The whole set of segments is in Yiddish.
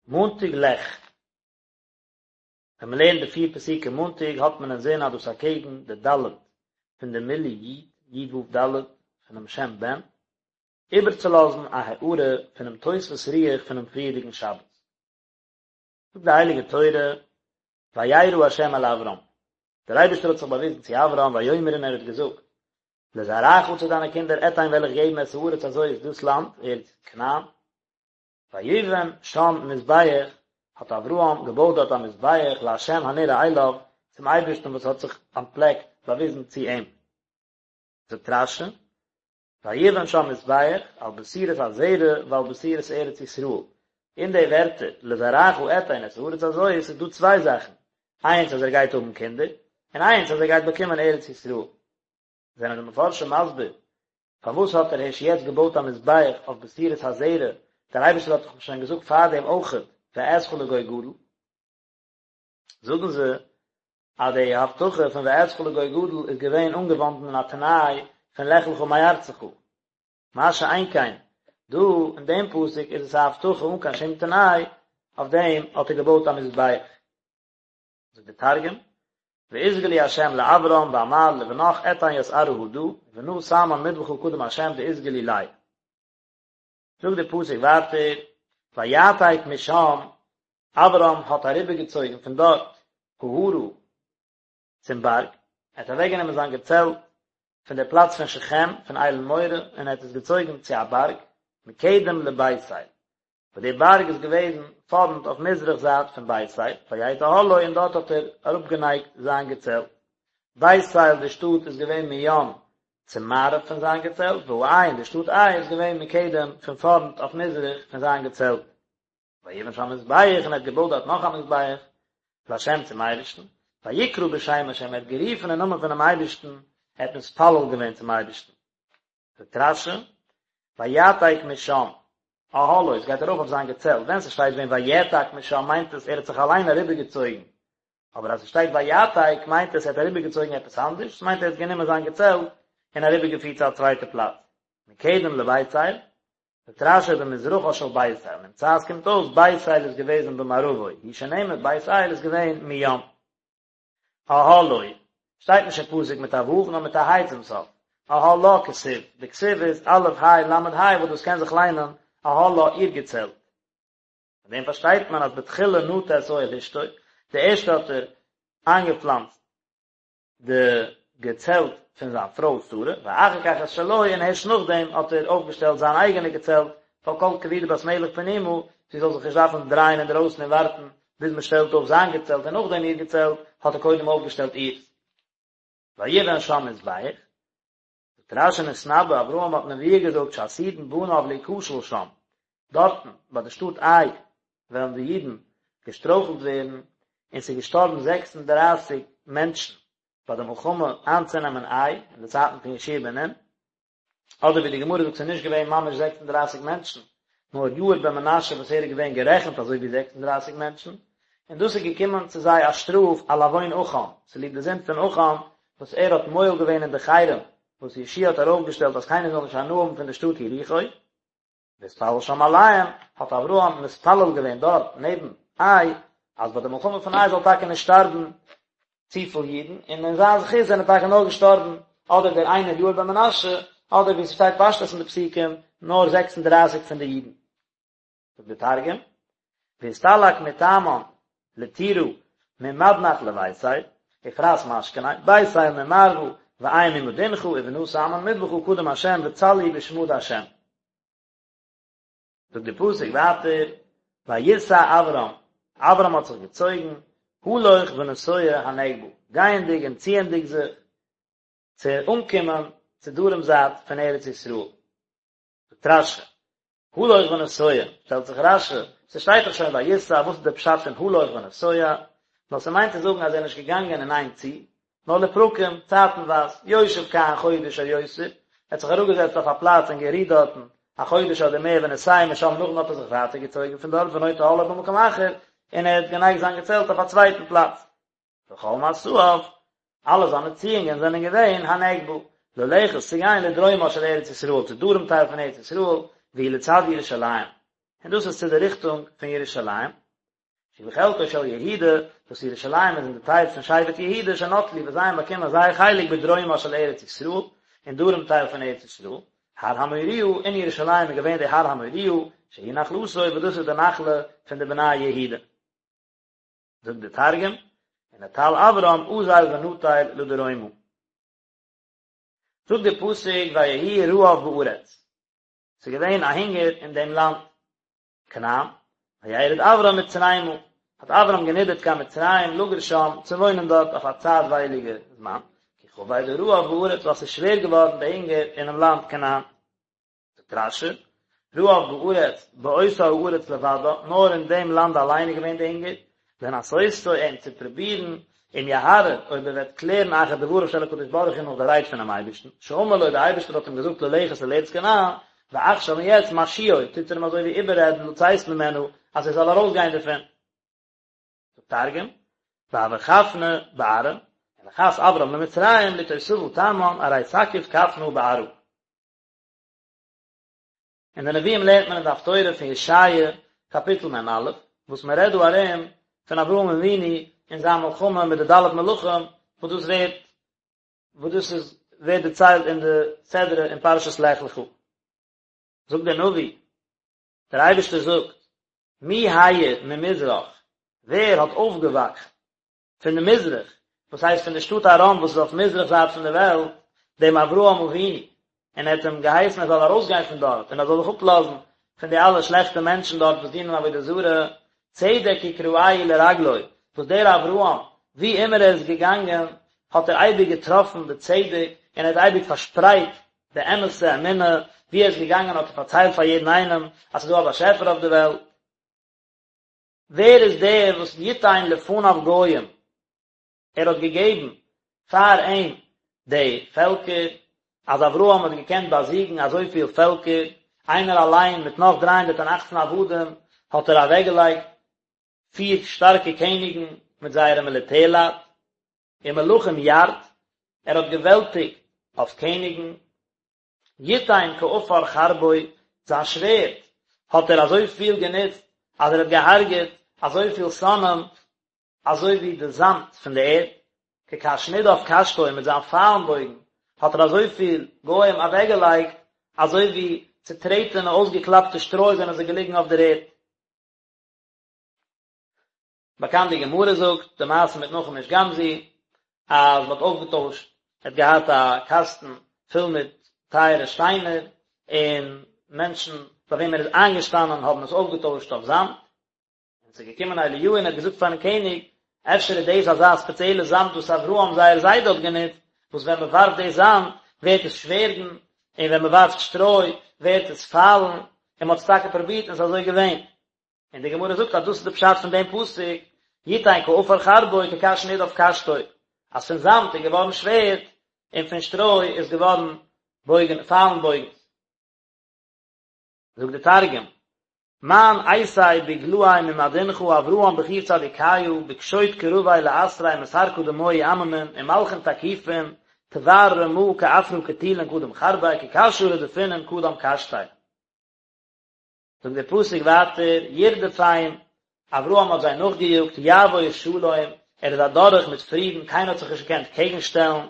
מאנטאג לך. ווען מען לערנט די פיר פסוקים מאנטאג האט מען אינזין אז דאס אקעגן די ד' פון די מילוי י', י' ו' ד', פונעם שם בן, איבערצולאזן א הארה פונעם תוספות רוח פונעם פריערדיגן שבת. זאגט די הייליגע תורה, וירא ה' אל אברם, דער אייבערשטער האט זיך באוויזן צו אברהם ויאמר און ער האט געזאגט, לזרעך צו דיינע קינדער אתן וועל איך געבן את הארץ הזאת דאס לאנד, ארץ כנען, ויבן שם מזבח, האט אברהם געבויט דארט א מזבח לה' הנראה אליו, צום אייבערשטן וואס האט זיך אנטפלעקט, באוויזן צו אים. זאגט רש"י, ויבן שם מזבח על בשורת הזרע ועל בשורת ארץ ישראל, אין די ווערטער לזרעך אתן את הארץ הזאת איז דא צוויי זאכן, איינס אז ער גייט האבן קינדער, און איינס אז ער גייט באקומען ארץ ישראל. זענען די מפרשים מסביר פארוואס האט ער הערשט יעצט געבויט א מזבח אויף בשורת הזרע, דער אייבערשטער האט דאך שוין געזאגט פארדעם אויכעט ואעשך לגוי גדול, זאגן זיי אז די הבטחה פון ואעשך לגוי גדול איז געווען אנגעוואנדן אין א תנאי פון לך לך מארצך, מה שאין כן דא אין דעם פסוק איז עס א הבטחה אן קיין שום תנאי, אויף דעם האט ער געבויט א מזבח. זאגט די תרגום, ואתגלי ה' לאברם ואמר לבנך אתן ית ארעא הדא, ובנא תמן מדבחא קדם ה' דאתגלי ליה. זאגט די פסוק ווייטער, ויעתק משם, אברם האט אריבערגעצויגן פון דארט ההרה צום בארג, ער האט אוועקגענומען זיין געצעלט פון דער פלאץ פון שכם, פון אלון מורה, און ער האט עס געצויגן צו א בארג, מקדם לבית אל, וואס די בארג איז געוועזן פארנט אויף מזרח זייט פון בית אל, ויט אהלו און דארט האט ער אראפגענייגט זיין געצעלט. בית אל די שטאט איז געווען מים צו מערב פון זיין געצעלט, והעי און די שטאט עי איז געווען מקדם פון פארנט אויף מזרח פון זיין געצעלט. ויבן שם מזבח און ער האט געבויט דארט נאך א מזבח לה' צום אייבערשטן, ויקרא בשם ה' ער האט גערופן אין נאמען פונעם אייבערשטן, ער האט מתפלל געווען צום אייבערשטן. זאגט רש"י, ויעתק משם, אהלו, עס גייט ארויף אויף זיין געצעלט, ווען ס'שטייט ווען ויעתק משם מיינט עס ער האט זיך אליין אריבערגעצויגן, אבער אז ס'שטייט ויעתק מיינט עס ער האט אריבערגעצויגן עפעס אנדערש, ס'מיינט ער האט גענומען זיין געצעלט און אריבערגעפירט צו א צווייטע פלאץ. מקדם לבית אל, זאגט רש"י במזרחה של בית אל, נמצא עס קומט אויס בית אל איז געוועזן במערבו, הוא שנאמר בית אל איז געווען מים. אהלו, שטייט נישט אין פסוק מיט א ו' נאר מיט א ה' צום סוף, אהלה כתיב, די כתיב איז א' ה' ל' ה' וואס דאס קען זיך ליינען אהלה איר געצעלט. פון דעם פארשטייט מען אז בתחילה נטע את אוהל אשתו, די ערשטע האט ער איינגעפלאנצט די געצעלט פון זיין פרוי שרה, ואחר כך את שלו, און הערשט נאכדעם האט ער אויפגעשטעלט זיין אייגענע געצעלט, ווייל כל כבודה בת מלך פנימה, זי זאל זיך נישט דארפן דרייען אינדערויסן און ווארטן ביז מען שטעלט אויף זיין געצעלט און נאכדעם איר געצעלט, האט ער קודם אויפגעשטעלט אירס. ויבן שם מזבח, זאגט רש"י נתנבא, אברהם האט נבואה געזאגט שעתידין בניו להיכשל שם, דארטן ביי די שטאט עי וועלן די אידן געשטרויכלט ווערן, און ס'איז געשטארבן 36 מענטשן ביי די מלחמה איינצונעמען עי אין די צייטן פון יהושע בן נון. אדער ווי די גמרא זאגט ס'איז נישט געווען ממש 36 מענטשן, נאר יאיר בן מנשה וואס ער איז געווען גערעכנט אזוי ווי 36 מענטשן, און דאס איז געקומען צו זיי א שטראף על עוון עכן, צוליב די זינד פון עכן, וואס ער האט מועל געווען אין די חרם וואס יהושע האט ארויפגעשטעלט אז קיינער זאל נישט הנאה האבן פון די שטאט יריחו. והתפלל שם עליהם, האט אברהם מתפלל געווען דארט נעבן עי, אז ביי די מלחמה פון עי זאל טאקע נישט שטארבן צופיל אידן, און אין זיין זכות זענען טאקע נאר געשטארבן אדער דער איינער יאיר בן מנשה, אדער ווי ס'שטייט פשטות אין די פסוקים, נאר 36 פון די אידן. זאגט די תרגום, ואסתלק מתמן לטורא ממדנח לביתאל, ופרס משכניה, בית אל ממערבא, ועי ממדינחא, ובנא תמן מדבחא קדם השם וצלי בשמא דהשם. זאגט די פסוק ווייטער, ויסע אברם, אברם האט זיך געצויגן, הלוך ונסוע הנגבה, גייענדיג און ציענדיג זיך, צו אנקומען צו דרום זייט פון ארץ ישראל. זאגט רש"י, הלוך ונסוע, שטעלט זיך רש"י, ס'שטייט דאך שוין ויסע, וואס איז דער פשט פון הלוך ונסוע? נאר ס'מיינט צו זאגן אז ער איז נישט געגאנגען אין איין צי, נאר לפרקים, צייטנווייז, יושב כאן חודש או יותר, ער האט זיך אראפגעזעצט אויף א פלאץ און גערוהט דארטן א חודש אדער מער ונוסע משם נאכדעם האט ער זיך ווייטער געצויגן פון דארט ונוטה אהלו במקום אחר, און ער האט גענייגט זיין געצעלט אויף א צווייטן פלאץ. וכל מסעיו, אלע זיינע ציאונגען זענען געווען הנגבה, ללכת צו גיין לדרומה של ארץ ישראל, צו דרום טייל פון ארץ ישראל, והיא לצד ירושלים. און דאס איז צו די ריכטונג פון ירושלים, שהיא בחלקו של יהודה, וואס ירושלים איז אין די טייל פון שבט יהודה שנטלו וואס זיי האבן באקומען זייער חלק בדרומה של ארץ ישראל, אין דרום טייל פון ארץ ישראל, הר המוריה, אין ירושלים איז געווען די הר המוריה, שהיא נחלתו וואס דאס איז די נחלה פון די בני יהודה. זאגט די תרגום, ונטל אברם אזיל ונטיל לדרומא. זאגט די פסוק ויהי רעב בארץ, ס'איז געווען א הונגער אין דעם לאנד כנען, וירד אברם מצרימה, האט אברם גענידערט קיין מצרים לגור שם, צו וואוינען דארט אויף א צייטווייליגע זמן, כי כבד הרעב בארץ, ווייל ס'איז שווער געווארן די הונגער אינעם לאנד כנען. זאגט רש"י, רעב בארץ, באותה הארץ לבדה, נאר אין דעם לאנד אליין איז געווען די הונגער, לנסותו אים צו פרובירן, אם יהרהר, אויב ער וועט קלערן אחר דבריו של הקדוש ברוך הוא נאך די רייד פונעם אייבערשטן, שאמר לו, דער אייבערשטער האט אים געזאגט ללכת אל ארץ כנען, ועכשיו און יעצט משיאו, טוט ער אים אזוי ווי איבעררעדן לצאת ממנה, אז ער זאל ארויסגיין דערפון. זאגט תרגום, והוה כפנא בארעא, ונחת אברם למצרים לאתותבא תמן ארי תקיף כפנא בארעא. אין די נביאים לערנט מען אין די הפטורה פון ישעיה קאפיטל מ"א, וואס מען רעדט דא ארום פון אברהם אבינו און זיין מלחמה מיט די ד' מלכים, וואס דאס ווערט וואס דאס איז ווערט דערציילט אין די סדרה אין פרשת לך לך. זאגט דער נביא, דער אייבערשטער זאגט, מי האיר ממזרח, ווער האט אויפגעוואכט פון די מזרח, וואס הייסט פון די שטאט ארם וואס איז אויף מזרח זייט פון די וועלט, דעם אברהם אבינו, און ער האט אים געהייסן ער זאל ארויסגיין פון דארט, און ער זאל זיך אפלאזן פון די אלע שלעכטע מענטשן דארט וואס דינען עבודה זרה, צדק יקראהו לרגלו, וואס דער אברהם, ווי אימער ער איז געגאנגען, האט ער אייביג געטראפן די צדק, און ער האט אייביג פארשפרייט די אמת'ע אמונה, ווי ער איז געגאנגען האט ער פארציילט פאר יעדן איינעם אז ס'איז דא א באשעפער אויף די וועלט. ווער איז דער וואס יתן לפניו גוים, ער האט געגעבן פאר אים די פעלקער, אז אברהם האט געקענט באזיגן אזויפיל פעלקער, איינער אליין מיט נאך 318 עבדים האט ער אוועקגעלייגט פיר שטארקע קעניגן מיט זייערע מיליטערלייט, ומלכים ירד, ער האט געוועלטיגט אויף קעניגן, יתן כעפר חרבו, זיין שווערד האט ער אזוי פיל גענוצט אז ער האט געהארגעט אזוי פיל שונאים אזוי ווי די זאמד פון די ערד, כקש נדף קשתו מיט זיין פיילן בויגן האט ער אזוי פיל גוים אוועקגעלייגט אזוי ווי צוטרעטענע אויסגעקלאפטע שטרוי זענען זיי געליגן אויף דער ערד. באקאנט די גמרא זאגט די מעשה מיט נחום איש גם זו אז מ'האט אויפגעטוישט ער האט געהאט א קאסטן פול מיט טייערע שטיינער און מענטשן ביי וועם ער איז איינגעשטאנען האבן עס אויפגעטוישט אויף זאמד און ס'איז געקומען אליהו און ער האט געזאגט פארן קעניג אפשר איז דאס אזא ספעציעלע זאמד וואס אברהם זייער זיידע האט גענוצט וואס ווען מ'ווארפט די זאמד ווערט עס שווערדן און ווען מ'ווארפט שטרוי ווערט עס פיילן און מ'האט עס טאקע פרובירט און ס'איז אזוי געווען. און די גמרא זאגט אז דאס איז די פשט פון דעם פסוק, יתן כעפר חרבו כקש נדף קשתו, אז פון זאמד איז געווארן שווערד, און פון שטרוי איז געווארן בויגן, פיילן בויגנס. זאגט די תרגום, מאן אייתי בגלאי ממדינכא אברהם בחור צדיקיא בקשוט קרביה לאתריה מסר קדמוהי עממין ומלכין תקיפין תבר רמא כעפרא קטילין קדם חרביה כקשא רדפינן קדם קשתיה. זאגט דער פסוק ווייטער, ירדפם, אברהם האט זיי נאכגעיאגט, יעבור שלום, ער איז אדורך מיט פרידן, קיינער האט זיך נישט געקענט קעגן שטעלן,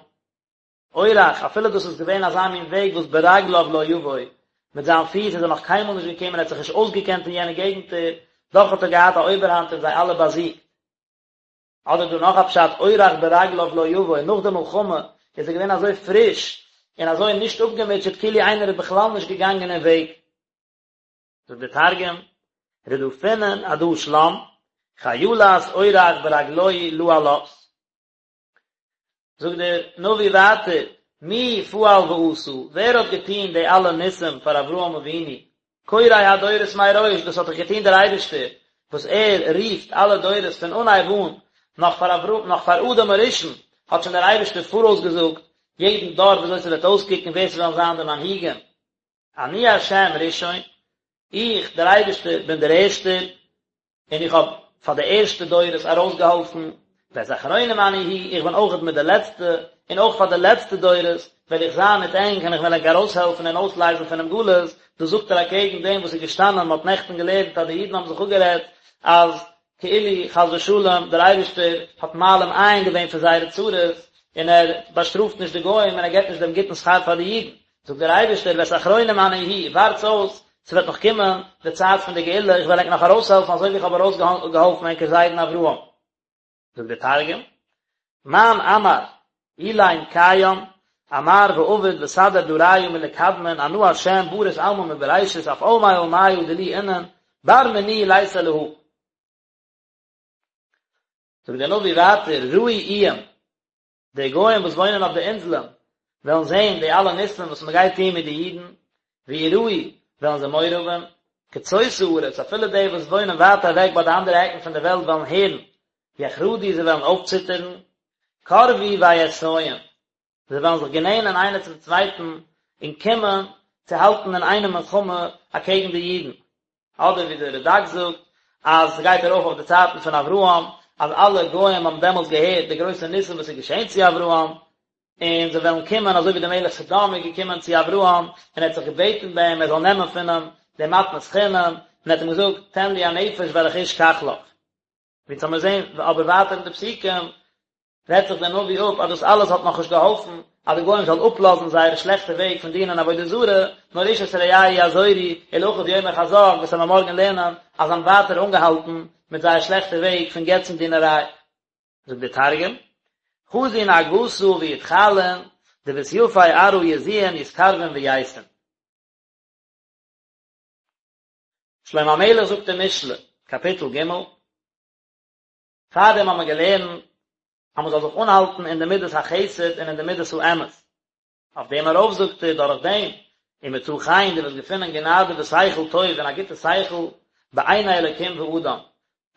אורח, אפילו דאס איז געווען אזא מין וועג וואס ברגליו לא יבוא, מיט זיין פיס איז ער נאך קיינמאל נישט געקומען, ער האט זיך נישט אויסגעקענט אין יענע געגנטער, דאך האט ער געהאט א אויבערהאנט און זיי אלע באזיגט. אדער דא נאך א פשט, אורח ברגליו לא יבוא, נאך די מלחמה איז ער געווען אזוי פריש און אזוי נישט אפגעמוטשעט כאילו איינער איז בכלל נישט געגאנגען אין וועג. זאגט דער תרגום, רדפינן עדא שלם, חילת אורח ברגלוהי לא עלת. זאגט דער נביא ווייטער, מי פעל ועשה, ווער האט געטון די אלע ניסים פאר אברהם אבינו, קורא הדורות מראש, דאס האט דאך געטון דער אייבערשטער, וואס ער רופט אלע דורות פון אנהייב אן, נאך פאר אברהם, נאך פאר אדם הראשון, האט שוין דער אייבערשטער פאראויס געזאגט יעדן דור ווי אזוי ס'וועט אויסקוקן, ווער ס'וועלן זיין די מנהיגים. אני השם ראשון, איך, דער אייבערשטער, בין דער ערשטער, און איך האב פאר די ערשטע דורות ארויסגעהאלפן, ואת אחרונים אני הוא, איך בין אויכעט מיט די לעצטע, און אויך פאר די לעצטע דורות וועל איך זיין מיט ענק און איך וועל ענק ארויסהעלפן און אויסלייזן פונעם גלות, דאס זאגט ער אקעגן דעם וואס איז געשטאנען, מען האט נעכטן געלערנט אז די אידן האבן זיך אפגערעדט אז כאילו חס ושלום דער אייבערשטער האט מעלים עין געווען פון זייערע צרות און ער באשטראפט נישט די גוים און ער געבט נישט דעם גוטן שכר פאר די אידן, זאגט דער אייבערשטער ואת אחרונים אני הוא, ווארטס אויס, ס'וועט נאך קומען די צייט פון די גאולה, איך וועל ענק נאך ארויסהעלפן אזוי ווי איך האב ארויסגעהאלפן ענקער זיידן אברהם. זאגט דער תרגום, מאן אמר אילין קיים, אמר ועביד וסדר דריא מלקדמין אנא השם ברית עלמא מבראשית אף עלמי עלמיא דילי אינון בר מיני ליתא להא. זאגט דער נביא ווייטער, ראו איים, די גוים וואס וואוינען אויף די אינזלען וועלן זען די אלע ניסים וואס מען גייט טון מיט די אידן, וייראו, וועלן זיי מורא האבן, קצות הארץ, אפילו די וואס וואוינען ווייט אוועק ביי די אנדערע עקן פון די וועלט וועלן הערן, יחרדו, זיי וועלן אויפציטערן, קרבו ויאתיון, זיי וועלן זיך גענענען איינער צום צווייטן און קומען צו האלטן אין איינעם מלחמה אקעגן די אידן. אדער ווי דער רד"ק זאגט אז ס'גייט ארויף אויף די צייטן פון אברהם, אז אלע גוים האבן דעמאלטס געהערט די גרויסע ניסים וואס איז געשען צו אברהם, און זיי וועלן קומען אזוי ווי דער מלך סדום איז געקומען צו אברהם און ער האט זיך געבעטן ביי אים ער זאל נעמען פון אים די מתנת חינם, און ער האט אים געזאגט תן לי הנפש והרכוש קח לך. ווי אונז האמיר זעהן אבער ווייטער אין די פסוקים רעדט זיך דער נביא אפ אז דאס אלעס האט נאכנישט געהאלפן אז די גוים זאלן אפלאזן זייערע שלעכטע וועג פון דינען עבודה זרה, נאר איש את רעהו יעזורו, ולאחיו יאמר חזק, וואס וועלן מיר מארגן לערנען אז זיי האבן ווייטער אנגעהאלטן מיט זייער שלעכטע וועג פון געצן דינעריי. זאגט דער תרגום, חזון נהגתא ויתחלון, דבסייפי ארעא יזועון יתקרבון וייתון. שלמה המלך זאגט אין משלי, קאפיטל ג', פארדעם האט מען געלערנט אז מען זאל זיך אנהאלטן אין די מידת החסד און אין די מידת האמת. אויף דעם ארויף זאגט ער, דורך דעם, ומצא חן, דו וועסט געפינען גענאדע ושכל טוב און א גוטע שכל, בעיני אלקים ואדם,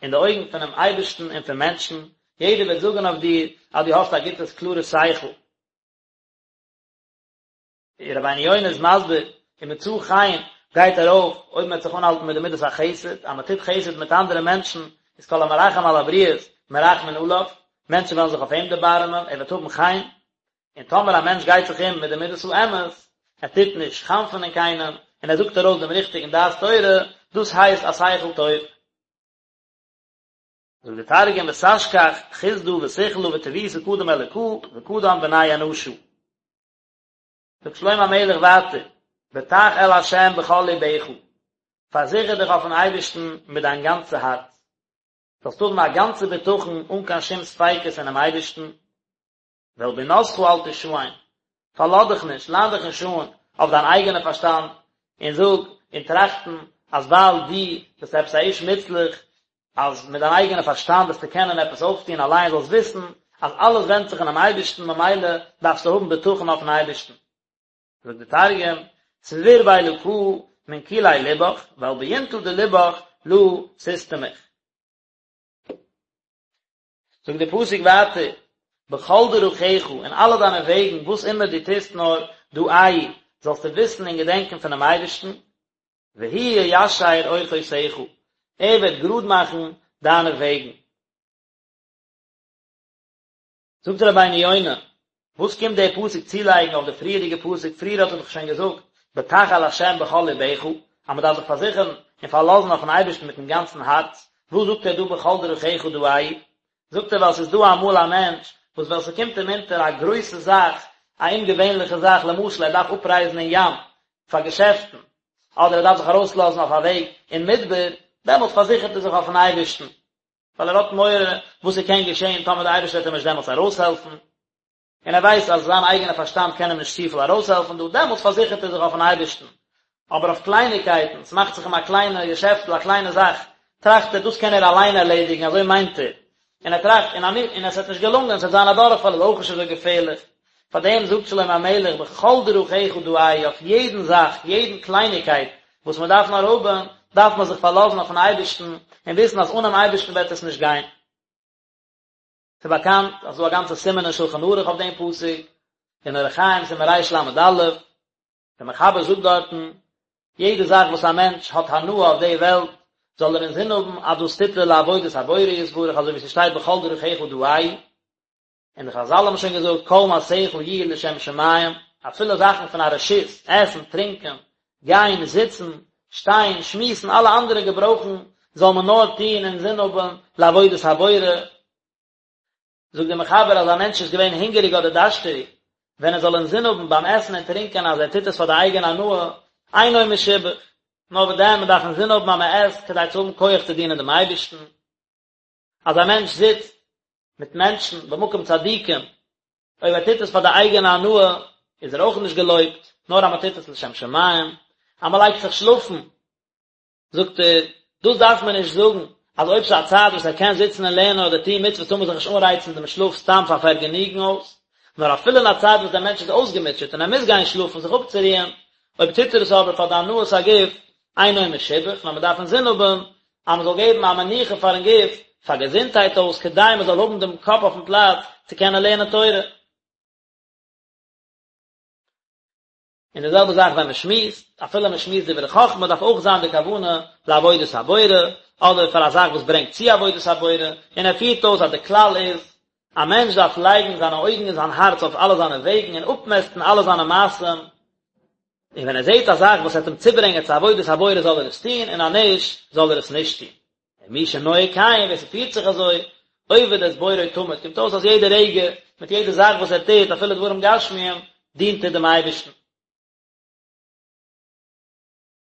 אין די אויגן פונעם אייבערשטן און פון מענטשן, יעדער וועט זאגן אויף דיר אז דו האסט א גוטע קלארע שכל. רבינו יונה איז מסביר, ומצא חן גייט ארויף אויב מען וועט זיך אנהאלטן מיט די מידת החסד, אז מען טוט חסד מיט אנדערע מענטשן, איז כל המרחם על הבריות מרחמין עליו, מענטשן וועלן זיך אויף אים דערבארעמען, ער וועט האבן חן, און טאמער א מענטש גייט זיך אום מיט די מידת האמת, ער טוט נישט חנפ'ענען קיינעם, און ער זאגט ארויס דעם ריכטיגן דעת תורה, דאס הייסט א שכל טוב. זאגט דער תרגום ותשכח חסדא ושכלא וטיבותא קדם אלקא וקדם בני אנשא. זאגט שלמה המלך ווייטער, בטח אל ה' בכל לבך, פארזיכער דיך אויפן אייבערשטן מיט דיין גאנצע הארץ, זאלסט האבן א גאנצע בטחון אן קיין שום ספיקות אינעם אייבערשטן, ואל בינתך אל תשען, פארלאז דיך נישט, ליין דיך נישט אן אויף דיין אייגענע פארשטאנד, און זאג און טראכטן אז ווייל דו ביסט עפעס א איש מוצלח, אז מיט דיין אייגענע פארשטאנד וועסטו קענען עפעס אויפטון אליין, זאלסט וויסן אז אלעס ווענדט זיך אינעם אייבערשטן, ממילא דארפסטו האבן בטחון אויפן אייבערשטן. זאגט דער תרגום, סביר באלקא מן כולי לבך, ועל ביונתא דלבך לא תסתמיך. זאגט דער פסוק ווייטער, בכל דרכיך, אין אלע דיינע וועגן, וואס אימער דו טוסט נאר, דעהו, זאלסטו וויסן און געדענקען פונעם אייבערשטן, והוא יישר אורחותיך, ער וועט גראד מאכן דיינע וועגן. זאגט רבינו יונה, וואס קומט דער פסוק צולייגן אויף די פריערדיגע פסוק, פריער האט ער דאך שוין געזאגט, בטח אל ה' בכל לבך, אז מען דארף זיך פארזיכערן און פארלאזן אויפן אייבערשטן מיטן גאנצן הארץ, וואס זאגט ער דא בכל דרכיך דעהו? זאגט ער ווייל ס'איז דא אמאל א מענטש וואס ווען ס'קומט אים אונטער א גרויסע זאך, א אומגעווענליכע זאך, למשל ער דארף אפרייזן אין ים פאר געשעפטן, אדער ער דארף זיך ארויסלאזן אויף א וועג אין מדבר, דעמאלט פארזיכערט ער זיך אויפן אייבערשטן, ווייל ער האט מורא וואס ס'קען געשען טאמער דער אייבערשטער וועט אים נישט דעמאלטס ארויסהעלפן, און ער ווייסט אז זיין אייגענע פארשטאנד קען אים נישט צופיל ארויסהעלפן דא, דעמאלטס פארזיכערט ער זיך אויפן אייבערשטן. אבער אויף קלייניקייטן, ס'מאכט זיך אים א קליינע געשעפטל, א קליינע זאך, טראכט ער, דאס קען ער אליין ערלעדיגן, אזוי מיינט ער, און ער טראכט, און און עס וועט נישט געלונגען, עס וועט זיין א דורכפאל, איז אויך נישט אזוי געפערליך. פאר דעם זאגט שלמה המלך, בכל דרכיך דעהו, אויף יעדן זאך, יעדן קלייניקייט וואס מען דארף נאר האבן, דארף מען זיך פארלאזן אויפן אייבערשטן, און וויסן אז אנעם אייבערשטן וועט עס נישט גיין. ס'איז באקאנט אז ס'דא א גאנצע סימן אין שלחן ערוך אויף דעם פסוק, אין אורח חיים סימן רל"א, דער מחבר זאגט דארטן, יעדע זאך וואס א מענטש האט הנאה אויף די וועלט, זאל ער אינזין האבן אז דאס טוט ער לעבודת הבורא יתברך, אזוי ווי ס'שטייט בכל דרכיך דעהו, און די חזל האבן שוין געזאגט כל מעשיך יהיו לשם שמים, אפילו זאכן פון א רשות, עסן, טרינקען, גיין, זיצן, שטיין, שמועסן, אלע אנדערע געברויכן, זאל מען נאר טון אינזין האבן לעבודת הבורא. זאגט דער מחבר אז א מענטש איז געווען הונגעריג אדער דארשטעריג, ווען ער זאל אינזין האבן ביים עסן און טרינקען אז ער טוט עס פאר די אייגענע הנאה, אינו משובח, נאר וואס דען, מען דארף אינזין האבן אז מען עסט כדי צו האבן כח צו דינען דעם אייבערשטן. אז א מענטש זיצט מיט מענטשן במקום צדיקים, אויב ער טוט עס פאר די אייגענע הנאה, איז ער אויך נישט געלויבט, נאר אז מען טוט עס לשם שמים, אז מען לייגט זיך שלאפן, זאגט ער, דאס דארף מען נישט זאגן, אז אויב ס'איז א צייט וואס ער קען זיצן און לערנען אדער טון מצוות טאר מען זיך נישט אנרייצן דעם שלאף סתם פאר פארגעניגן אויס, נאר אפילו אין א צייט וואס דער מענטש איז אויסגעמוטשעט און ער מוז גיין שלאפן זיך אפצורוען, אויב טוט ער עס אבער פאר די הנאת הגוף, אינו משובח, נאר מען דארף אינזין האבן אז מען זאל געבן א מנוחה פארן גוף, פאר געזונטהייט אויס, כדי מען זאל האבן דעם קאפ אויפן פלאץ צו קענען לערנען תורה. און די זעלבע זאך ווען מען שמועסט, אפילו מען שמועסט דברי חכמה דארף אויך זיין די כוונה לעבודת הבורא, אדער פאר א זאך וואס ברענגט צו עבודת הבורא, און ער פירט אויס אז די כלל איז, א מענטש דארף לייגן זיינע אויגן און זיין הארץ אויף אלע זיינע וועגן און אפמעסטן אלע זיינע מעשים, און ווען ער זעט א זאך וואס וועט אים צוברענגען צו עבודת הבורא זאל ער עס טון, און אז נישט, זאל ער עס נישט טון. און מי שנוהג כן, ווער ס'פירט זיך אזוי, עובד את בוראו תמיד, קומט אויס אז יעדע רגע, מיט יעדע זאך וואס ער טוט, אפילו דברים גשמיים, דינט ער דעם אייבערשטן.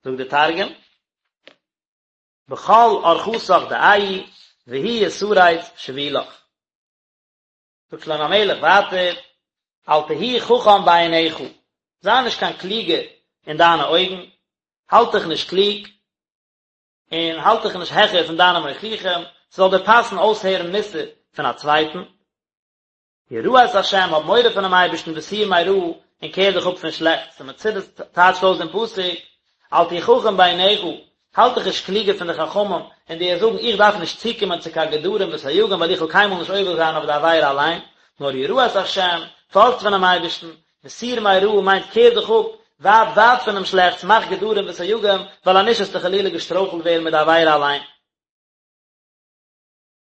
זאגט דער תרגום, בכל ארחתך דעי, והוא יתריץ שבילך. זאגט שלמה המלך ווייטער, אל תהי חכם בעיניך, זיי נישט קיין קלוגער אין דיינע אויגן, האלט דיך נישט קלוג, און האלט דיך נישט העכער פון דיינע מוכיחים, ס'זאל דיר פאסן אויסהערן מוסר פון א צווייטן. ירא את השם, האב מורא פונעם אייבערשטן וסור מרע, און קער דיך אפ פון שלעכטס. די מצודות טייטשט אויס דעם פסוק, אל תהי חכם בעיניך, האלט דיך נישט קלוגער פון די חכמים, און דו וועסט זאגן, איך דארף נישט צוקומען צו קיין גדרים וסייגים ווייל איך וועל קיינמאל נישט עובר זיין אויף די עבירה אליין, נאר ירא את השם, פארכט פונעם אייבערשטן, וסור מרע מיינט קער דיך אפ ווייט ווייט פונעם שלעכטס, מאך גדרים וסייגים, ווייל אנישט וועסטו חלילה געשטרויכלט ווערן מיט די עבירה אליין.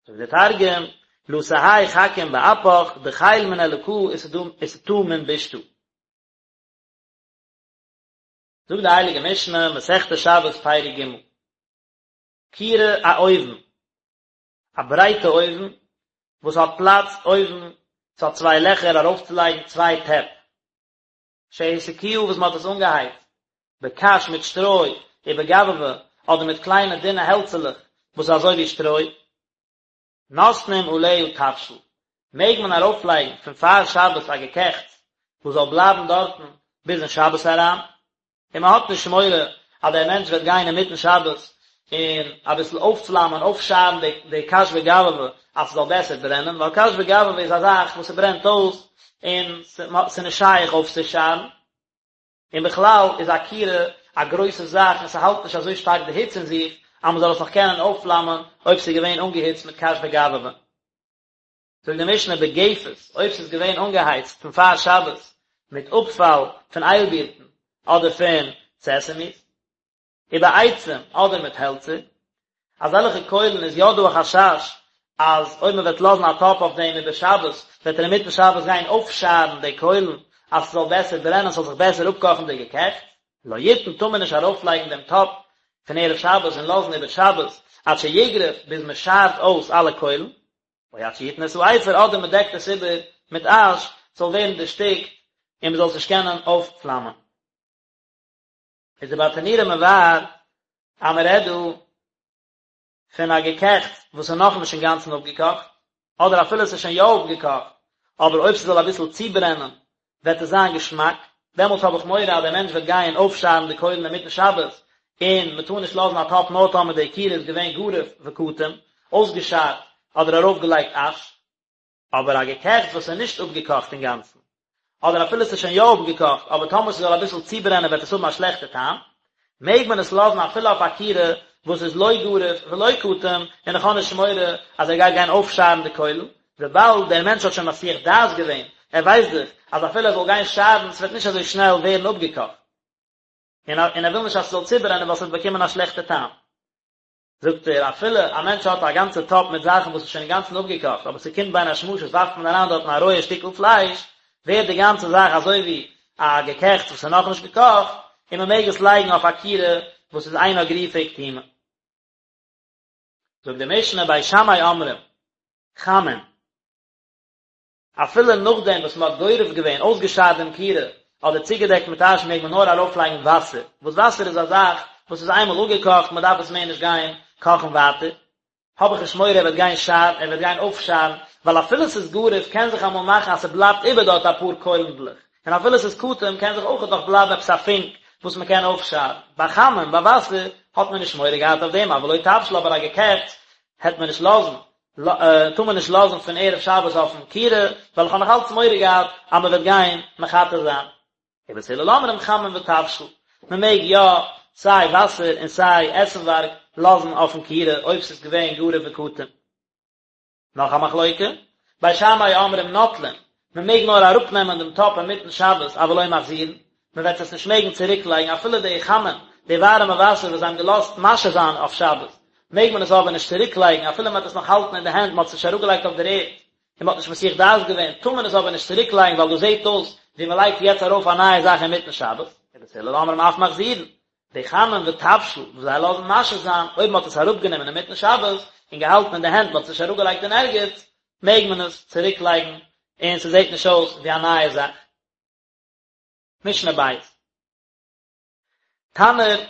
זאגט דער תרגום, לא תהי חכים באפך, דחיל מן אלקא ותטא מן בישתא. זאגט די הייליגע משנה, מסכת שבת פרק ג', כירה א אויוון, א ברייטע אויוון, וואס האט פלאץ אויבן, ס'האט צוויי לעכער ארויפצולייגן צוויי טעפ, שהסיקוה וואס מ'האט עס אנגעהייצט, בקש מיט שטרוי, ובגבבא, אדער מיט קליינע דינע העלצעלעך וואס איז אזוי ווי שטרוי. נותנים עליה תבשיל, מעג מען ארויפלייגן פון פאר שבת א געקעכטס וואס זאל בלייבן דארטן ביז אין שבת אריין, און מען האט נישט מורא אז דער מענטש וועט גיין אינמיטן שבת און אביסל אויפפלאמען, אויפשארן די די קש וגבבא אז ס'זאל בעסער ברענען, ווייל קש וגבבא איז א זאך וואס ס'ברענט אויס און ס'איז נישט שייך אויפצושארן. און בכלל איז א כירה א גרויסע זאך און ס'האלט נישט אזוי שטארק די היץ אין זיך אז מ'זאל עס נאך קענען אויפפלאמען אויב ס'איז געווען אנגעהיצט מיט קש וגבבא. זאגט די משנה בגפת, אויב ס'איז געווען אנגעהייצט פון פאר שבת מיט אפפאל פון איילבירטן אדער פון סעסעמיס, ובעצים אדער מיט העלצער, אזעלכע קוילן איז יא דא א חשש אז אויב מען וועט לאזן א טאפ אויף דעם איבער שבת וועט ער אינמיטן שבת גיין אויפשארן די קוילן אז ס'זאל בעסער ברענען ס'זאל זיך בעסער אפקאכן די געקעכטס. לא יתן טאר מען נישט ארויפלייגן דעם טאפ פון ערב שבת און לאזן איבער שבת עד שיגרוף ביז מען שארט אויס אלע קוילן, או עד שיתן את האפר אדער מען דעקט עס איבער מיט אש ס'זאל ווערן דערשטיקט און מען זאל עס נישט קענען אויפפלאמען. איז די ברטנורא מבאר אז מען רעדט דא פון א געקעכטס וואס איז נאכנישט אינגאנצן אפגעקאכט, אדער אפילו עס איז שוין יא אפגעקאכט, אבער אויב ס'זאל אביסל צוברענען וועט עס זיין געשמאק, דעמאלטס האב איך מורא אז דער מענטש וועט גיין אויפשארן די קוילן אינמיטן שבת, און מען טאר נישט לאזן א טאפ נאר טאמער די כירה איז געווען גרוף וקטום, אויסגעשארט אדער ארויפגעלייגט אש. אבער א געקעכטס וואס איז נישט אפגעקאכט אינגאנצן, אדער אפילו עס איז שוין יא אפגעקאכט, אבער טאמער ס'זאל אביסל צוברענען וועט עס האבן א שלעכטע טעם, מעג מען עס לאזן אפילו אויף א כירה וואס איז לא גרוף ולא קטום, און איך האב נישט מורא אז ער גייט גיין אויפשארן די קוילן, וויבאלד דער מענטש האט שוין מסיח דעת געווען, ער ווייסט דאך אז אפילו ער זאל גיין שארן ס'וועט נישט אזוי שנעל ווערן אפגעקאכט, און ער וויל נישט אז ס'זאל צוברענען ווייל ס'וועט באקומען א שלעכטע טעם. זאגט ער, אפילו א מענטש האט א גאנצע טאפ מיט זאכן וואס איז שוין אינגאנצן אפגעקאכט, אבער ס'קומט בין השמשות ווארפט מען אריין דארטן א רויע שטיקל פלייש, ווערט די גאנצע זאך אזוי ווי. א געקעכטס וואס איז נאכנישט געקאכט, און מען מעג עס לייגן אויף א כירה וואס איז אינה גרופה וקטומה. זאגט די משנה בית שמאי אומרים, חמין. אפילו נאכדעם וואס מען האט גורף געווען, אויסגעשארט דעם כירה, אדער צוגעדעקט מיט אש מעג מען נאר ארויפלייגן וואסער, וואס וואסער איז א זאך וואס איז איינמאל אפגעקאכט, מען דארף עס מער נישט גיין קאכן ווייטער, האב איך נישט מורא ער וועט גיין שארן, ער וועט גיין אויפשארן, ווייל אפילו ס'איז גרוף קען זיך אמאל מאכן אז ס'בלייבט איבער דארט אפאר קוילנדלעך, און אפילו ס'איז קטום קען זיך אויכעט נאך בלייבן עפעס א פונק וואס מען קען אויפשארן. ביי חמין, ביי וואסער, האט מען נישט מורא געהאט אויף דעם, אבל לא תבשיל אבער א געקעכטס העט מען נישט לאזן, טאר מען נישט לאזן פון ערב שבת אויפן כירה, ווייל איך האב נאך אלץ מורא געהאט אז מען וועט גיין מחתה זיין. ובית הלל אומרים חמין ותבשיל, מען מעג יא סיי וואסער און סיי עסנווארג לאזן אויפן כירה אויב ס'איז געווען גרוף וקטום. נאך א מחלוקה, בית שמאי אומרים נוטלין, מען מעג נאר אראפנעמען דעם טאפ אינמיטן שבת אבל לא מחזירין, מען וועט עס נישט מעגן צוריק לייגן אפילו די חמין, די ווארעמע וואסער וואס זיי האבן געלאזט משהה זיין אויף שבת, מעג מען עס אבער נישט צוריק לייגן אפילו מען וועט עס נאך האלטן אין די הענט, מען האט עס נישט אראפגעלייגט אויף דער ערד, און מען האט נישט מסיח דעת געווען, טאר מען עס אבער נישט צוריק לייגן ווייל דאס זעט אויס ווי מען לייגט יעצט ארויף א נייע זאך אינמיטן שבת, ובית הלל אומרים אף מחזירין, די חמין ותבשיל וואס זיי לאזן משהה זיין, אויב מען האט עס אראפגענומען אינמיטן שבת און געהאלטן אין די הענט, מען האט עס נישט אראפגעלייגט אין ערגעץ, מעג מען עס צוריק לייגן און ס'זעט נישט אויס ווי א נייע זאך. משנה בית. תנור,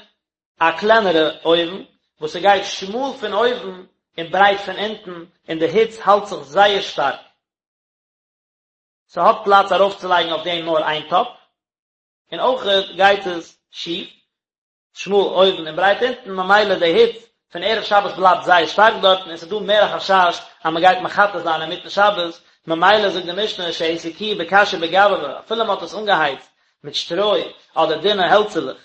א קלענערע אויוון וואס ס'גייט שמאל פון אויבן און ברייט פון אונטן און די היץ האלט זיך זייער שטארק. ס'האט פלאץ ארויפצולייגן אויף דעם נאר איין טאפ, און אויכעט גייט עס שיף, שמאל אויבן און ברייט אונטן, ממילא די היץ פון ערב שבת בלייבט זייער שטארק דארטן און ס'איז דא מער א חשש אז מ'גייט מחתה זיין אינמיטן שבת, ממילא זאגט די משנה שהסיקוה בקש ובגבבא, אפילו מ'האט עס אנגעהייצט מיט שטרוי אדער דינע העלצעלעך.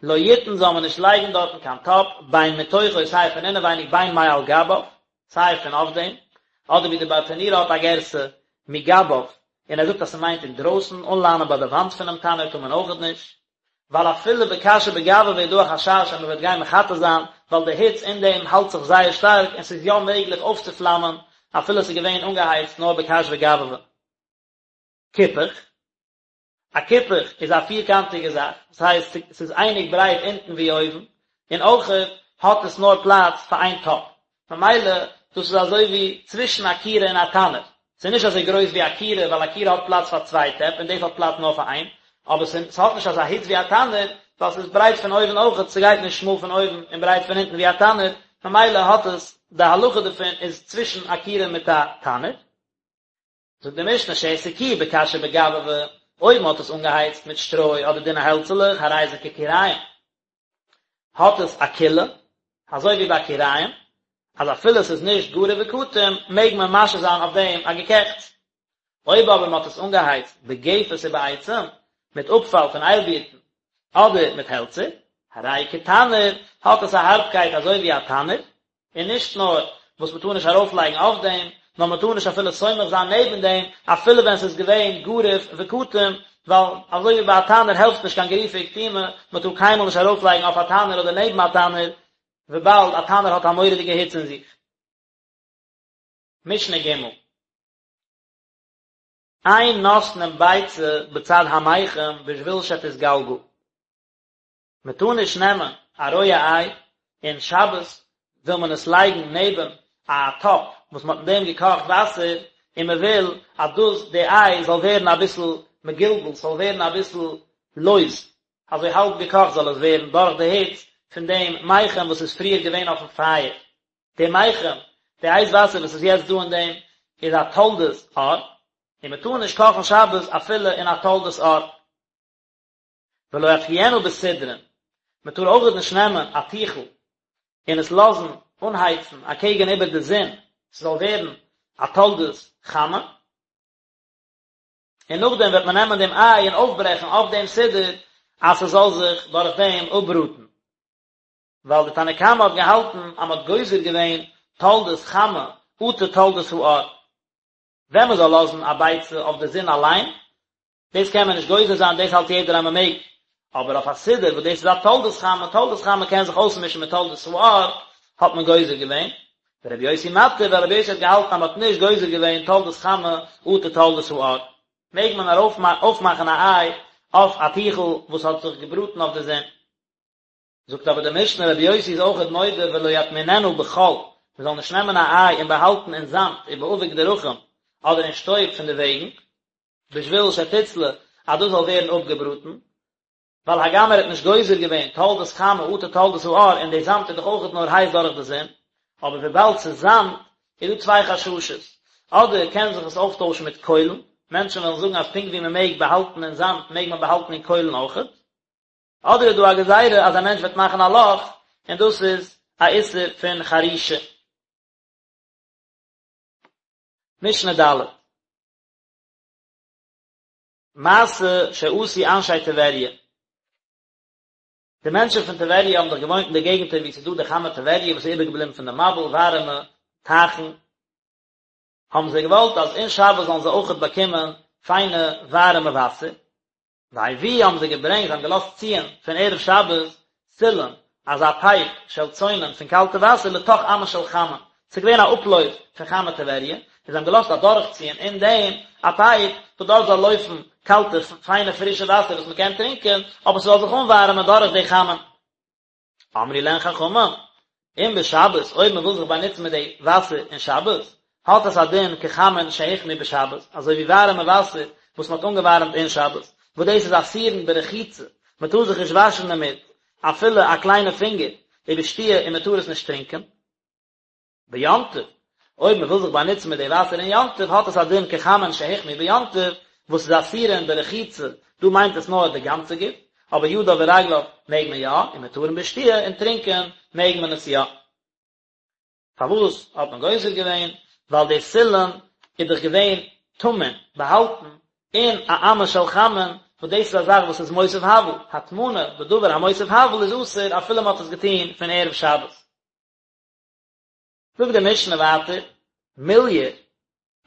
לא יתן זאל מען נישט לייגן דארטן קיין טאפ, בין מתוכו סיי פון אינעווייניג בין מעל גביו, סיי פון אויף דעם, אדער ווי די ברטנורא האט א גירסא מגביו, און ער זאגט אז ס'מיינט אינדרויסן, אנליינען ביי די וואנט פונעם תנור טאר מען אויכעט נישט, ווייל אפילו בקש ובגבבא איז דא א חשש אז מ'וועט גיין מחתה זיין, ווייל די היץ אין דעם האלט זיך זייער שטארק און ס'איז יא מעגליך אויפצופלאמען אפילו ס'איז געווען אנגעהייצט נאר בקש וגבבא. כיפוך. א כיפוך איז א פירקאנטיגע זאך, דאס הייסט ס'איז אייניג ברייט אונטן ווי אויבן, און אויכעט האט עס נאר פלאץ פאר איין טאפ, ממילא דאס איז אזוי ווי צווישן א כירה און א תנור, ס'איז נישט אזוי גרויס ווי א כירה ווייל א כירה האט פלאץ פאר צוויי טעפ און דאס האט פלאץ נאר פאר איין, אבער ס'האט נישט אזא היץ ווי א תנור ווייל ס'איז ברייט פון אויבן אויכעט, ס'גייט נישט שמאל פון אויבן און ברייט פון אונטן ווי א תנור, ממילא האט עס, די הלכה דערפון איז צווישן א כירה מיט א תנור. זאגט די משנה שהסיקוה בקש ובגבבא, אויב מען האט עס אנגעהייצט מיט שטרוי אדער דינע העלצעלעך הרי זה ככיריים, האט עס א קולא, אזוי ווי ביי כיריים, אז אפילו עס איז נישט גרוף וקטום מעג מען משהה זיין אויף דעם א געקעכטס. אויב אבער מען האט עס אנגעהייצט בגפת ובעצים, מיט אפפאל פון איילבירטן, אדער מיט העלצער, הרי כתנור, האט עס א הארבקייט אזוי ווי א תנור, און נישט נאר וואס מען טאר נישט ארויפלייגן אויף דעם, נאר מען טאר נישט אפילו סומך זיין נעבן דעם, אפילו ווען ס'איז געווען גרוף וקטום, ווייל אזוי ווי ביי א תנור העלפט נישט קיין גריפה וקטימה, מען טאר קיינמאל נישט ארויפלייגן אויף א תנור אדער נעבן א תנור, וויבאלד א תנור האט א מורא'דיגע היץ אין זיך. משנה ג'. אין נותנין ביצה בצד המיחם בשביל שתתגלגל. מען טאר נישט נעמען א רויע איי און שבת וויל מען עס לייגן נעבן א טאפ וואס מען האט אין דעם געקאכט וואסער און מען וויל אז דאס די איי זאל ווערן אביסל מגולגל ס'זאל ווערן אביסל לויז אזוי האלב געקאכט זאל עס ווערן דורך די היץ פון דעם מיחם וואס איז פריער געווען אויפן פייער די מיחם די הייס וואסער וואס איז יעצט דא אין דעם איז א תולדת אור און מען טאר נישט קאכן שבת אפילו אין א תולדת אור. ולא יתקיענה בסודרין, מען טאר אויכעט נישט נעמען א טיכל און עס לאזן אנהייצן אקעגן איבער די זון ס'זאל ווערן א תולדת חמה, און נאכדעם וועט מען נעמען דעם איי און אויפברעכן אויף דעם סודר אז ס'זאל זיך דורך דעם אפבראטן, ווייל די תנא קמא האט געהאלטן אז מען האט גוזר געווען תולדת חמה אטו תולדת האור, ווען מען זאל לאזן א ביצה אויף די זון אליין, דאס קען מען נישט גוזר זיין, דאס האלט יעדער אז מען מעג, אבער אויף א סודר וואס דאס איז א תולדת חמה, תולדת חמה קען זיך אויסמישן מיט תולדת האור, האט מען גוזר געווען, ורבי יוסי מתיר, ווייל רבי יוסי האט געהאלטן אז מען האט נישט גוזר געווען תולדת חמה אטו תולדת האור. מעג מען אויפמאכן א איי אויף א טיכל וואס האט זיך געבראטן אויף די זון. זאגט אבער די משנה רבי יוסי איז אויכעט מודה ולא יטמיננה בחול, מען זאל נישט נעמען א איי און באהאלטן אין זאמד ובאבק דרכים אדער אין שטויב פון די וועגן, בשביל שתצלה אז דאס זאל ווערן אפגעבראטן, ווייל הגם ער האט נישט גוזר געווען תולדות חמה אטו תולדות האור און די זאמד איז דאך אויכעט נאר הייס דורך די זון, אבער וויבאלד ס'איז זאמד איז דא צוויי חששות, אדער קען זיך עס אויפטוישן מיט קוילן, מענטשן וועלן זאגן אז פונקט ווי מען מעג באהאלטן אין זאמד מעג מען באהאלטן אין קוילן אויכעט, אדער איז דא א גזירה אז א מענטש וועט מאכן א לאך און דאס איז א איסור פון חרישה. משנה ד'. מעשה שעשו אנשי טבריה. די מענטשן פון טבריה האבן דאך געוואוינט אין די געגנטער וואו ס'איז דא די חמי טבריה וואס איז איבערגעבליבן פון די מבול, ווארעמע טייכן, האבן זיי געוואלט אז אין שבת זאלן זיי אויכעט באקומען פיינע ווארעמע וואסער, והביאו האבן זיי געברענגט, זיי האבן געלאזט ציען פון ערב שבת סילון, אזא פייפ של צונן פון קאלטע וואסער לתוך אמה של חמין, ס'איז געווען א אפלויף פון חמי טבריה, און זיי האבן געלאזט אדורכציען אין דעם א פייפ וואס דארט זאל לויפן קאלטע פיינע פרישע וואסער וואס מ'קען טרינקען, אבער ס'זאל זיך אנווארעמען דורך די חמין. אמרו להן חכמים, אם בשבת, אויב מען וויל זיך באנוצן מיט די וואסער אין שבת, האט עס א דין כחמין שהוחמו בשבת, אזוי ווי ווארעמע וואסער וואס מען האט אנגעווארעמט אין שבת, וואס דאס איז אסורין ברחיצה, מען טאר זיך נישט וואשן דערמיט, אפילו א קליינע פינגער, ובשתיה און מען טאר עס נישט טרינקען. ביום טוב, אויב מען וויל זיך באנוצן מיט די וואסער אין יום טוב האט עס א דין כחמין שהוחמו ביום טוב, וואס איז אסורין ברחיצה, דא מיינט עס נאר די גאנצע גוף, אבער ידיו ורגליו מעג מען יא, ומותרין בשתיה, און טרינקען מעג מען עס יא. פארוואס האט מען גוזר געווען? ווייל די סילון איז דאך געווען טמון, באהאלטן, אין א אמה של חמין, וואס דאס איז א זאך וואס איז מוסיף הבל, הטמנה בדבר המוסיף הבל איז אסור אפילו מען האט עס געטון פון ערב שבת. זאגט די משנה ווייטער, מוליאר,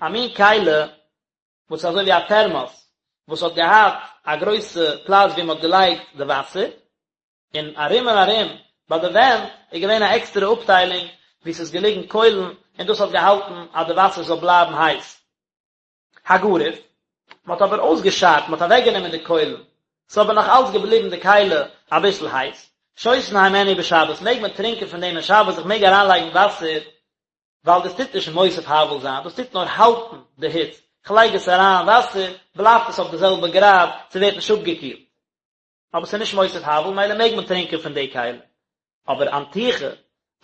א מין כלי וואס איז אזוי ווי א טערמאס, וואס האט געהאט א גרויסע פלאץ ווי מען האט געלייגט די וואסער, און ארום און ארום ביי די ווענט איז געווען א עקסטערע אפטיילונג וואו ס'איז געליגן קוילן און דאס האט געהאלטן אז די וואסער זאל בלייבן הייס. הגרוף, מען האט אבער אויסגעשארט, מען האט אוועקגענומען די קוילן, ס'איז אבער נאך אלץ געבליבן די כלי אביסל הייס, שותין הימנו בשבת, מעג מען טרינקען פון דעם אין שבת, איך מעג אריינלייגן וואסער, ווייל דאס טוט נישט מוסיף הבל זיין, דאס טוט נאר האלטן די היץ, כ'לייג עס אריין וואסער, בלייבט עס אויף די זעלבע גראד, ס'ווערט נישט אפגעקילט. אבער ס'איז נישט מוסיף הבל, מילא מעג מען טרינקען פון די כלי. אבער אנטיחה,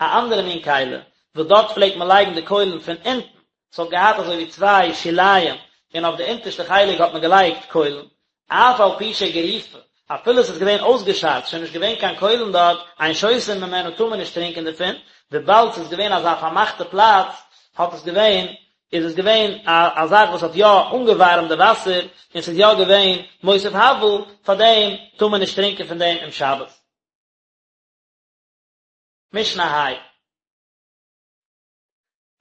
א אנדערע מין כלי, וואס דארט פלעגט מען לייגן די קוילן פון אונטן, ס'האט געהאט אזוי ווי צוויי שוליים, און אויף די אונטערשטע חלק האט מען געלייגט קוילן, אף על פי שגרופה, אפילו ס'איז געווען אויסגעשארט, שוין נישט געווען קיין קוילן דארט, אין שותין ממנה טאר מען נישט טרינקען דערפון, וויבאלד ס'איז געווען אזא פארמאכטע פלאץ, האט עס געווען איז עס געווען א א זאך וואס האט יא אנגעווארעמט די וואסער, און ס'איז יא געווען מוסיף הבל, פאר דעם טאר מען נישט טרינקען פון דעם אום שבת. משנה ה'.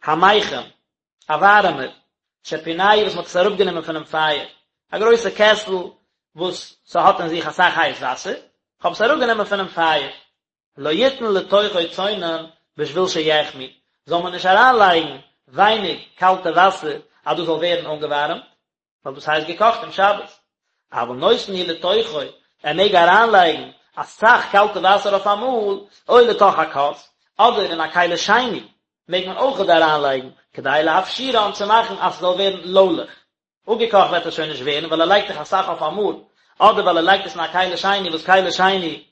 המיחם, א ווארעמער, שפינהו וואס מ'האט עס אראפגענומען פונעם פייער, א גרויסע קעסל וואס ס'האט אין זיך אסאך הייס וואסער, כ'האב עס אראפגענומען פונעם פייער. לא יתן לתוכו צונן בשביל שיחמו, זאל מען נישט אריינלייגן ווייניג קאלטע וואסער אז דאס זאל ווערן אנגעווארעמט, ווייל דאס הייסט געקאכט אום שבת. אבל נותן הוא לתוכו, ער מעג אריינלייגן אסאך קאלטע וואסער אויף אמאל, או לתוך הכוס, אדער אין א כלי שני מעג מען אויכעט אריינלייגן, כדי להפשירן צו מאכן אז ס'זאל ווערן לוילעך. אפגעקאכט וועט עס שוין נישט ווערן ווייל ער לייגט דאך אסאך אויף אמאל, אדער ווייל ער לייגט עס אין א כלי שני וואס כלי שני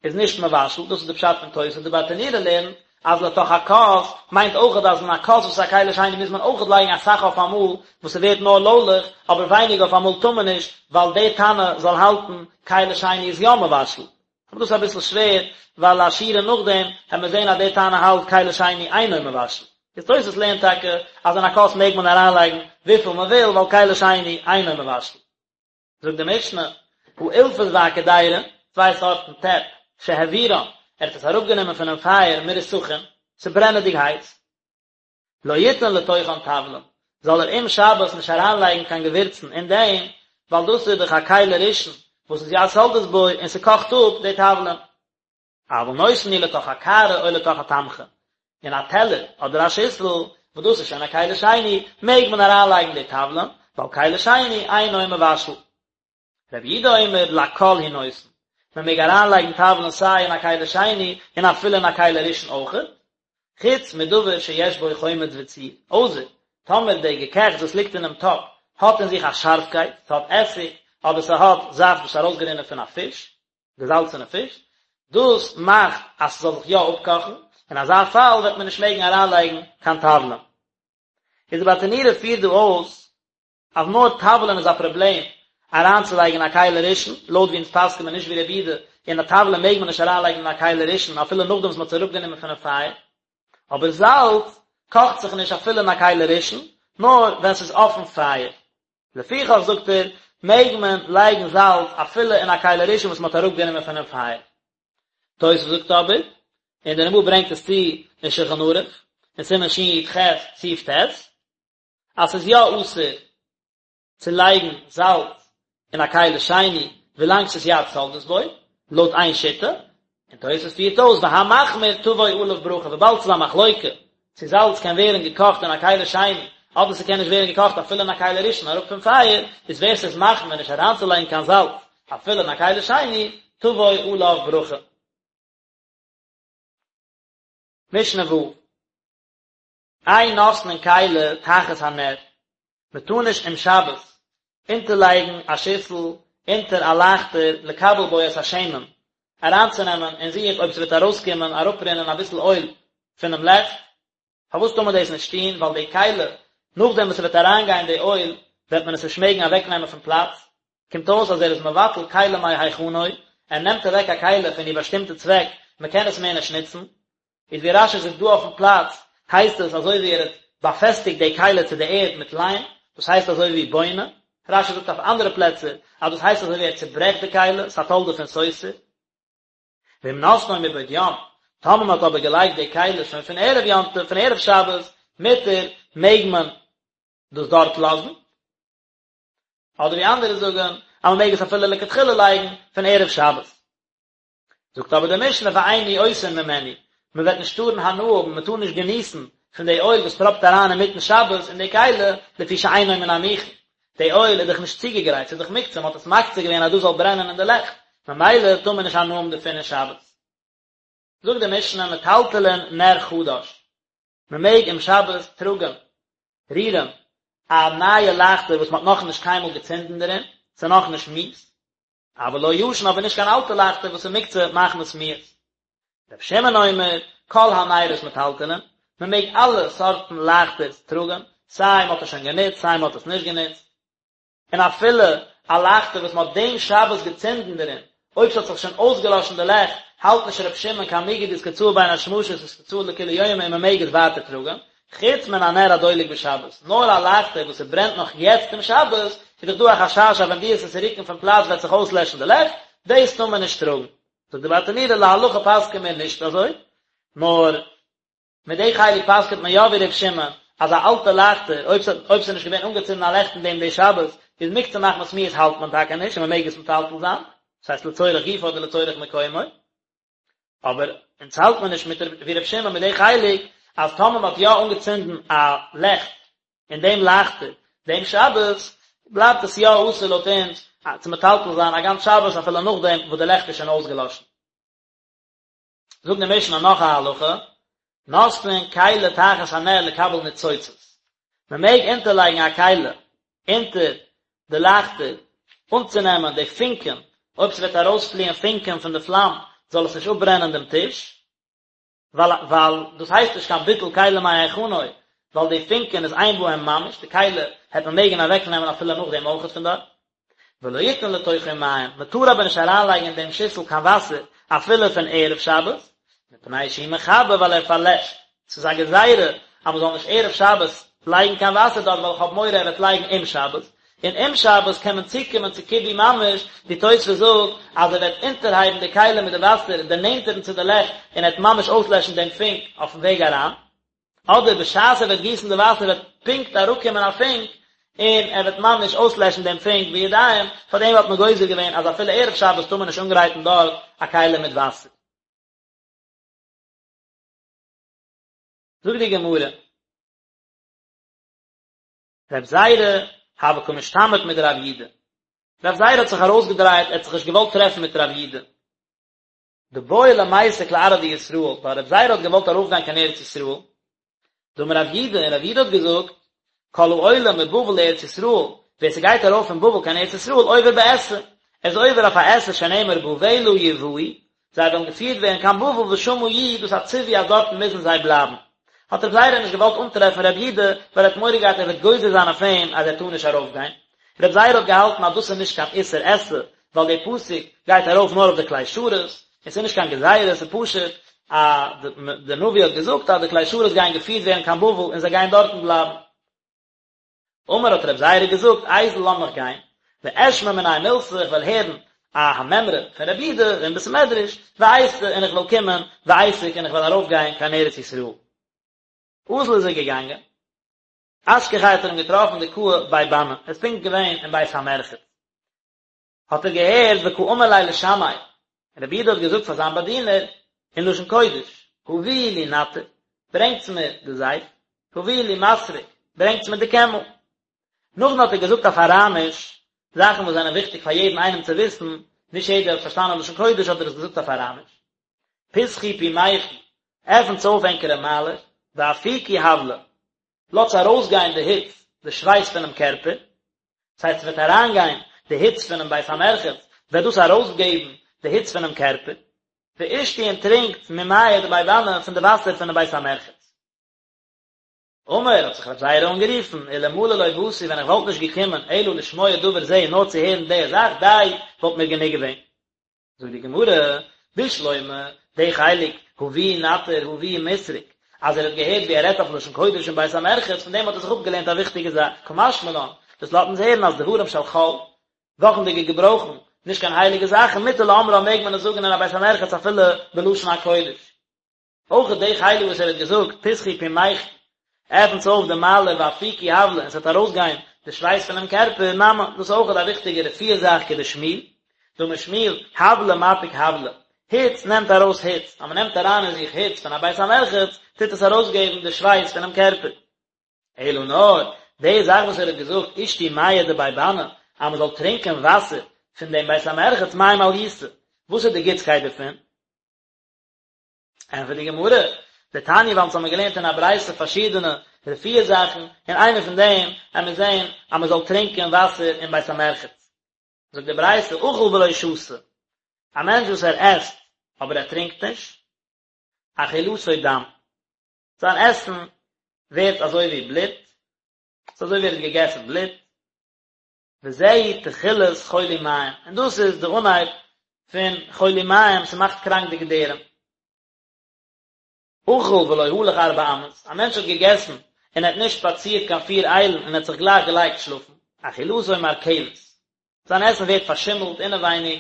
איז נישט מבשל, דאס איז די פשט פון תוס', די ברטנורא לערנט אז לתוך הכוס מיינט אויכעט אז אין א כוס וואס איז א כלי שני מוז מען אויכעט לייגן אסאך אויף אמאל וואס ס'ווערט נאר לוילעך, אבער ווייניג אויף אמאל טאר מען נישט ווייל די תנא זאל האלטן כלי שני איז יא מבשל. אבער דאס איז אביסל שווער ווייל א שורה נאכדעם העט מען זען אז די תנא האלט כלי שני אינו מבשל. איז תוס' לערנט טאקע אז אין א כוס מעג מען אריינלייגן וויפיל מען וויל ווייל כלי שני אינו מבשל. זאגט די משנה, האילפס והקדירה, צוויי סארטן טעפ, שהעבירן, ער האט עס אראפגענומען פונעם פייער מרותחין, ס'איז ברענעדיג הייס, לא יתן לתוכן תבלין, זאל ער אום שבת נישט אריינלייגן קיין געווירצן אין דעם, ווייל דאס איז דאך א כלי ראשון וואס איז יד סולדת בו און ס'קאכט אפ די תבלין. אבל נותן הוא לתוך הקערה או לתוך התמחוי, אין א טעלער אדער א שיסל, וואס דאס איז שוין א כלי שני, מעג מען אריינלייגן די תבלין, ווייל כלי שני אינו מבשל. רבי יהודה אומר לכל הוא נותן, מען מעג אריינלייגן תבלין סיי אין א כלי שני און אפילו אין א כלי ראשון אויכעט, חוץ מדבר שיש בו חומץ וציר, אויסער טאמער די געקעכטס וואס ליגט אינעם טאפ האט אין זיך א שארפקייט, ס'האט עסיג אדער ס'האט זאפט וואס איז ארויסגערינען פון א פיש, געזאלצענע פיש, דאס מאכט אז ס'זאל זיך יא אפקאכן, אין אזא פאל וועט מען נישט מעגן אריינלייגן קיין תבלין. איז די ברטנורא פירט דא אויס אז נאר תבלין איז א פראבלעם אריינצולייגן אין א כלי ראשון, לויט ווי אונז פסק'ן מיר נישט ווי רבי יהודה, און א תבלין מעג מען נישט אריינלייגן אין א כלי ראשון אפילו נאכדעם וואס מ'האט עס אראפגענומען פונעם פייער, אבער זאלץ קאכט זיך נישט אפילו אין א כלי ראשון, נאר ווען ס'איז אויפן פייער. לפיכך זאגט ער, מעג מען לייגן זאלץ אפילו אין א כלי ראשון וואס מ'האט אראפגענומען פונעם פייער. תוס' זאגט אבער, און דער רמ"א ברענגט עס צו אין שולחן ערוך, אין סימן שי"ח סעיף ט', אז ס'איז יא אסור צו לייגן זאלץ אין א כלי שני ווילאנג ס'איז יד סולדת בו, לויט איין שיטה, און תוס' פירט אויס והמחמיר תבוא עליו ברכה, וויבאלד ס'איז א מחלוקה צו זאלץ קען ווערן געקאכט אין א כלי שני אדער ס'קען נישט ווערן געקאכט אפילו אין א כלי ראשון אראפ פון פייער, איז ווער ס'איז מחמיר נישט אריינצולייגן קיין זאלץ אפילו אין א כלי שני, תבוא עליו ברכה. משנה ו'. אין נותנין כלי תחת הנר, מען טאר נישט אום שבת אונטערלייגן א שיסל אונטער א לייכטער לקבל בו את השמן, אריינצונעמען אין זיך אויב ס'וועט ארויסקומען אראפרינען אביסל אויל פונעם לעכט, פארוואס טאר מען דאס נישט טון, ווייל די כלי נאכדעם וואס ס'וועט אריינגיין די אויל וועט מען עס נישט מעגן אוועקנעמען פון פלאץ, קומט אויס אז ער איז מבטל כלי מהיכנו, ער נעמט אוועק א כלי פון איר באשטימטע צוועק, מען קען עס מער נישט נוצן, איז ווי רש"י זאגט דא אויפן פלאץ, הייסט עס אזוי ווי ער האט באפעסטיגט די כלי צו די ערד מיט ליים, דאס הייסט אזוי ווי בונה, רש"י זאגט אויף אנדערע פלעצער אז דאס הייסט אזוי ווי ער צוברעכט די כלי, ס'א תולדה פון סותר. ואם נתנו מבעוד יום, טאמער מען האט אבער געלייגט די כלי שוין פון ערב יום טוב, פון ערב שבת, מותר, מעג מען דאס דארט לאזן, אדער ווי אנדערע זאגן אז מען מעג עס אפילו לכתחילה לייגן פון ערב שבת. זאגט אבער די משנה ואין ניאותין ממנו, מען וועט נישט טארן הנאה האבן, מען טאר נישט געניסן פון די אויל וואס טראפט אריין אינמיטן שבת אין די כלי, לפי שאינו מן המוכן, די אויל איז דאך נישט צוגעגרייט, ס'איז דאך מוקצה, מען האט עס מקצה געווען אז דאס זאל ברענען אין די לעכט, ממילא טאר מען נישט הנאה האבן דערפון אין שבת. זאגט די משנה מטלטלין נר חדש, מען מעג אום שבת טראגן, רירן, א נייע לייכטער וואס מען האט נאכנישט קיינמאל געצינדן דערין, ס'איז נאכנישט מיאוס, אבל לא ישן אבער נישט קיין אלטע לייכטער וואס איז מוקצה מחמת מיאוס. רבי שמעון אומר, כל הנרות מטלטלין, מען מעג אלע סארטן לייכטערס טראגן, סיי מען האט עס שוין גענוצט סיי מען האט עס נישט גענוצט, און אפילו א לייכטער וואס מען האט דעם שבת געצינדן דערין, אויב ס'האט זיך שוין אויסגעלאשן די לעכט, האלט נישט רבי שמעון קיין מיגו דאיתקצאי בין השמשות איתקצאי לכולי יומא און מען מעג עס ווייטער טראגן, חוץ מן הנר הדולק בשבת, נאר א לייכטער וואס ס'ברענט נאך יעצט אום שבת, איז דאך דא א חשש אז ווען דו וועסט עס רוקן פון פלאץ וועט זיך אויסלעשן די לעכט, דאס טאר מען נישט טראגן. זאגט די ברטנורא להלכה פסק'ען מיר נישט אזוי, נאר מיט די חלק פסק'ענט מען יא ווי ר' שמעון, אז א אלטע לייכטער, אויב ס'האט אויב ס'איז נישט געווען אנגעצינדן א לעכט אין דעם די שבת, איז מוקצה מחמת מיאוס האלט מען טאקע נישט און מ'מעג עס מטלטל זיין, דאס הייסט לצורך גופו אדער לצורך מקומו. אבער אונז האלט מען נישט מיט ווי ר' שמעון מיט די חלק אז טאמער מען האט יא אנגעצינדן א לעכט אין דעם לייכטער דעם שבת בלייבט עס יא אסור לויט אונז צו מטלטל זיין א גאנץ שבת אפילו נאכדעם וואס די לעכט איז שוין אויסגעלאשן. זאגט די משנה נאך א הלכה, נותנין כלי תחת הנר לקבל ניצוצות, מען מעג אונטערלייגן א כלי אונטער די לייכטער אנצונעמען די פונקען, אויב ס'וועט ארויספליען פונקען פון די פלאם זאל עס נישט אפברענען דעם טיש, ווייל ווייל דאס הייסט נישט קיין ביטול כלי מהיכנו, ווייל די פונקען איז אין בהם ממש, די כלי העט מען מעגן אוועקנעמען אפילו נאכדעם אויכעט פון דארט. ולא יתן לתוכו מים, מען טאר אבער נישט אריינלייגן אין דעם שיסל קיין וואסער אפילו פון ערב שבת, מפני שהוא מכבה ווייל ער פארלעשט, ס'איז א גזירה אז מען זאל נישט ערב שבת לייגן קיין וואסער דארט ווייל איך האב מורא ער וועט לייגן אום שבת, און אום שבת קען מען צוקומען צו כיבוי ממש, ווי תוספות זאגט אז ער וועט אונטערהייבן די כלי מיט די וואסער דערנענטערן צו די לעכט און ער וועט ממש אויסלעשן דעם פונק אויפן וועג אריין. אדער בשעת ער וועט גיסן די וואסער וועט פונקט אראפקומען א פונק און ער וועט ממש אויסלעשן דעם פונק בידיים, פאר דעם האט מען גוזר געווען אז אפילו ערב שבת טאר מען נישט אנגרייטן דארט א כלי מיט וואסער. זאגט די גמרא. רב זירא. הוה קא משתמיט מדרב יודא. רב זירא האט זיך ארויסגעדרייט, ער האט זיך נישט געוואלט טרעפן מיט רב יודא. דבעי למיסק לארעא דישראל, ווייל רב זירא האט געוואלט ארויפגיין קיין ארץ ישראל. דאמר רב יודא, און רב יודא האט געזאגט, כל העולה מבבל לארץ ישראל, ווער ס'גייט ארויף פון בבל קיין ארץ ישראל, עובר בעשה, ער איז עובר אויף א עשה שנאמר בבלה יובאו, זיי וועלן געפירט ווערן קיין בבל ושמה יהיו, דאס א ציווי אז דארטן מוזן זיי בלייבן. האט רב זירא נישט געוואלט אנטרעפן רב יודא, ווייל ער האט מורא געהאט ער וועט גוזר זיין אויף אים אז ער טאר נישט ארויפגיין. רב זירא האט געהאלטן אז דאס איז נישט קיין איסור עשה, ווייל דער פסוק גייט ארויף נאר אויף די כלי שרת, און ס'איז נישט קיין גזירה, ס'איז פשוט אז די נביא האט געזאגט אז די כלי שרת גייען געפירט ווערן קיין בבל און זיי גייען דארטן בלייבן. אמר האט רב זירא געזאגט, איזיל לאמיך גיין, ואשמע מיניה מילתא, איך וועל הערן א המימרא פון רב יודא אין בית מדרש, ואיתי און איך וועל קומען, ואיסק און איך וועל ארויפגיין קיין ארץ ישראל. אזל איז ער געגאנגען. אשכחיה האט ער אים געטראפן דקאי בי בני, ער איז פונקט געווען אין בית המרחץ. האט ער געהערט וקאמר ליה לשמעיה, רבי יודא האט געזאגט פאר זיין באדינער אין לשון קודש, הביאו לי נתר, ברענגטס מיר די זייף, הביאו לי מסרק, ברענגטס מיר די קעמל. נאכדעם האט ער געזאגט אויף אראמיש, זאכן וואס זענען וויכטיג פאר יעדן איינעם צו וויסן, נישט יעדער האט פארשטאנען לשון קודש האט ער עס געזאגט אויף אראמיש. פתחו פומייכו, עפנטס אויף ענקערע מיילער, ואפיקו הבלא, לאזטס ארויסגיין די היץ, די שווייס פונעם קערפער, דאס הייסט ס'וועט אריינגיין די היץ פונעם בית המרחץ, וועט דאס ארויסגעבן די היץ פונעם קערפער, ואשתו און טרינקט ממיא דבי בני פון די וואסער פונעם בית המרחץ. אמר, האט זיך רב זירא אנגערופן, אלמלא לא באתי ווען איך וואלט נישט געקומען אלא לשמוע דבר זה נאר צו הערן די זאך, די, וואלט מיר גענוג געווען. זאגט די גמרא, בשלמא, די חלק, הביאו נתר, הביאו מסרק, אז ער האט געהערט ווי ער רעדט אויף לשון קודש אין בית המרחץ, פון דעם האט ער זיך אפגעלערנט א וויכטיגע זאך, קא משמע לן, דאס לאזט אונז הערן אז דברים של חול, וואכנדיגע געברויכן, נישט קיין הייליגע זאכן, מותר לאומרן מעג מען עס זאגן אין א בית המרחץ אפילו בלשון הקודש. אויך די חלק וואס ער האט געזאגט פתחו פומייכו, עפנטס אויף די מיילער ואפיקו הבלא און ס'וועט ארויסגיין די שווייס פונעם קערפער, נמי, דאס איז אויך א וויכטיגע רפואה זאך כדשמואל, דאמר שמואל, הבלא מפיק הבלא, היץ נעמט ארויס היץ, אז מ'נעמט אריין אין זיך היץ פון א בית המרחץ, טוט עס ארויסגעבן די שווייס פונעם קערפער. אלא נאר, די זאך וואס ער האט געזאגט אשתו מיא דבי בני, אז מ'זאל טרינקען וואסער פון דעם בית המרחץ מאי מעליותא, וואס איז די גוטסקייט דערפון? ענטפערט די גמרא, דתניא ווייל אונז האבן געלערנט אין א ברייתא פארשידענע רפואה זאכן, און איינע פון דעם עמיר זען אז מען זאל טרינקען וואסער אין בית המרחץ. זאגט די ברייתא, אכל ולא שתה, א מענטש וואס ער עסט אבער ער טרינקט נישט, אכילתו דם, זיין עסן ווערט אזוי ווי בלוט, ס'איז אזוי ווי ער האט געגעסן בלוט, וזהו תחילת חולי מעיים, און דאס איז די אנהייב פון חולי מעיים, ס'מאכט קראנק די געדערים. אכל ולא הלך ארבע אמות, א מענטש האט געגעסן און ער האט נישט שפאצירט קיין פיר איילן און ער האט זיך גלייך געלייגט שלאפן, אכילתו מרקבת, זיין עסן ווערט פארשימלט אינעווייניג,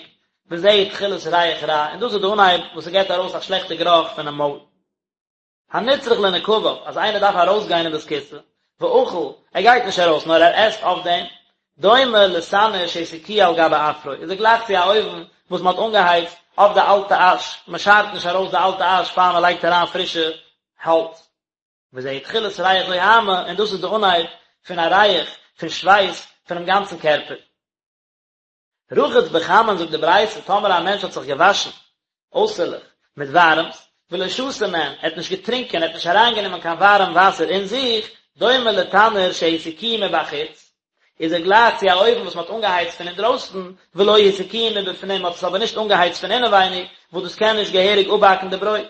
וזהו תחילת ריח רע, און דאס איז די אנהייב וואס ס'געבט ארויס א שלעכטע גערוך פונעם מויל. הנצרך לנקביו, אז איינער דארף ארויסגיין אין בית הכסא, ואכל, ער גייט נישט ארויס נאר ער עסט אויף דעם, דומה לתנור שהסיקוהו על גבי אפרו, איז ער גלייך צו א אויוון וואס מען האט אנגעהייצט אויף די אלטע אש, מען שארט נישט ארויס די אלטע אש פאר מען לייגט אריין פרישע האלץ. וזהו תחילת ריח זוהמא, און דאס איז די אנהייב פון א ריח פון שווייס פונעם גאנצן קערפער. רחץ בחמין זאגט די ברייתא טאמער א מענטש האט זיך געוואשן אויסערליך מיט ווארעמס ולא שתה מהן ער האט נישט געטרינקען ער האט נישט אריינגענומען קיין ווארעם וואסער אין זיך דומה לתנור שהסיקוהו מבחוץ איז ער גלייך צו א אויוון וואס מען האט אנגעהייצט פון אינדרויסן ולא הסיקוהו מבפנים מען האט עס אבער נישט אנגעהייצט פון אינעווייניג וואס דאס קען נישט געהעריג אפבאקן די ברויט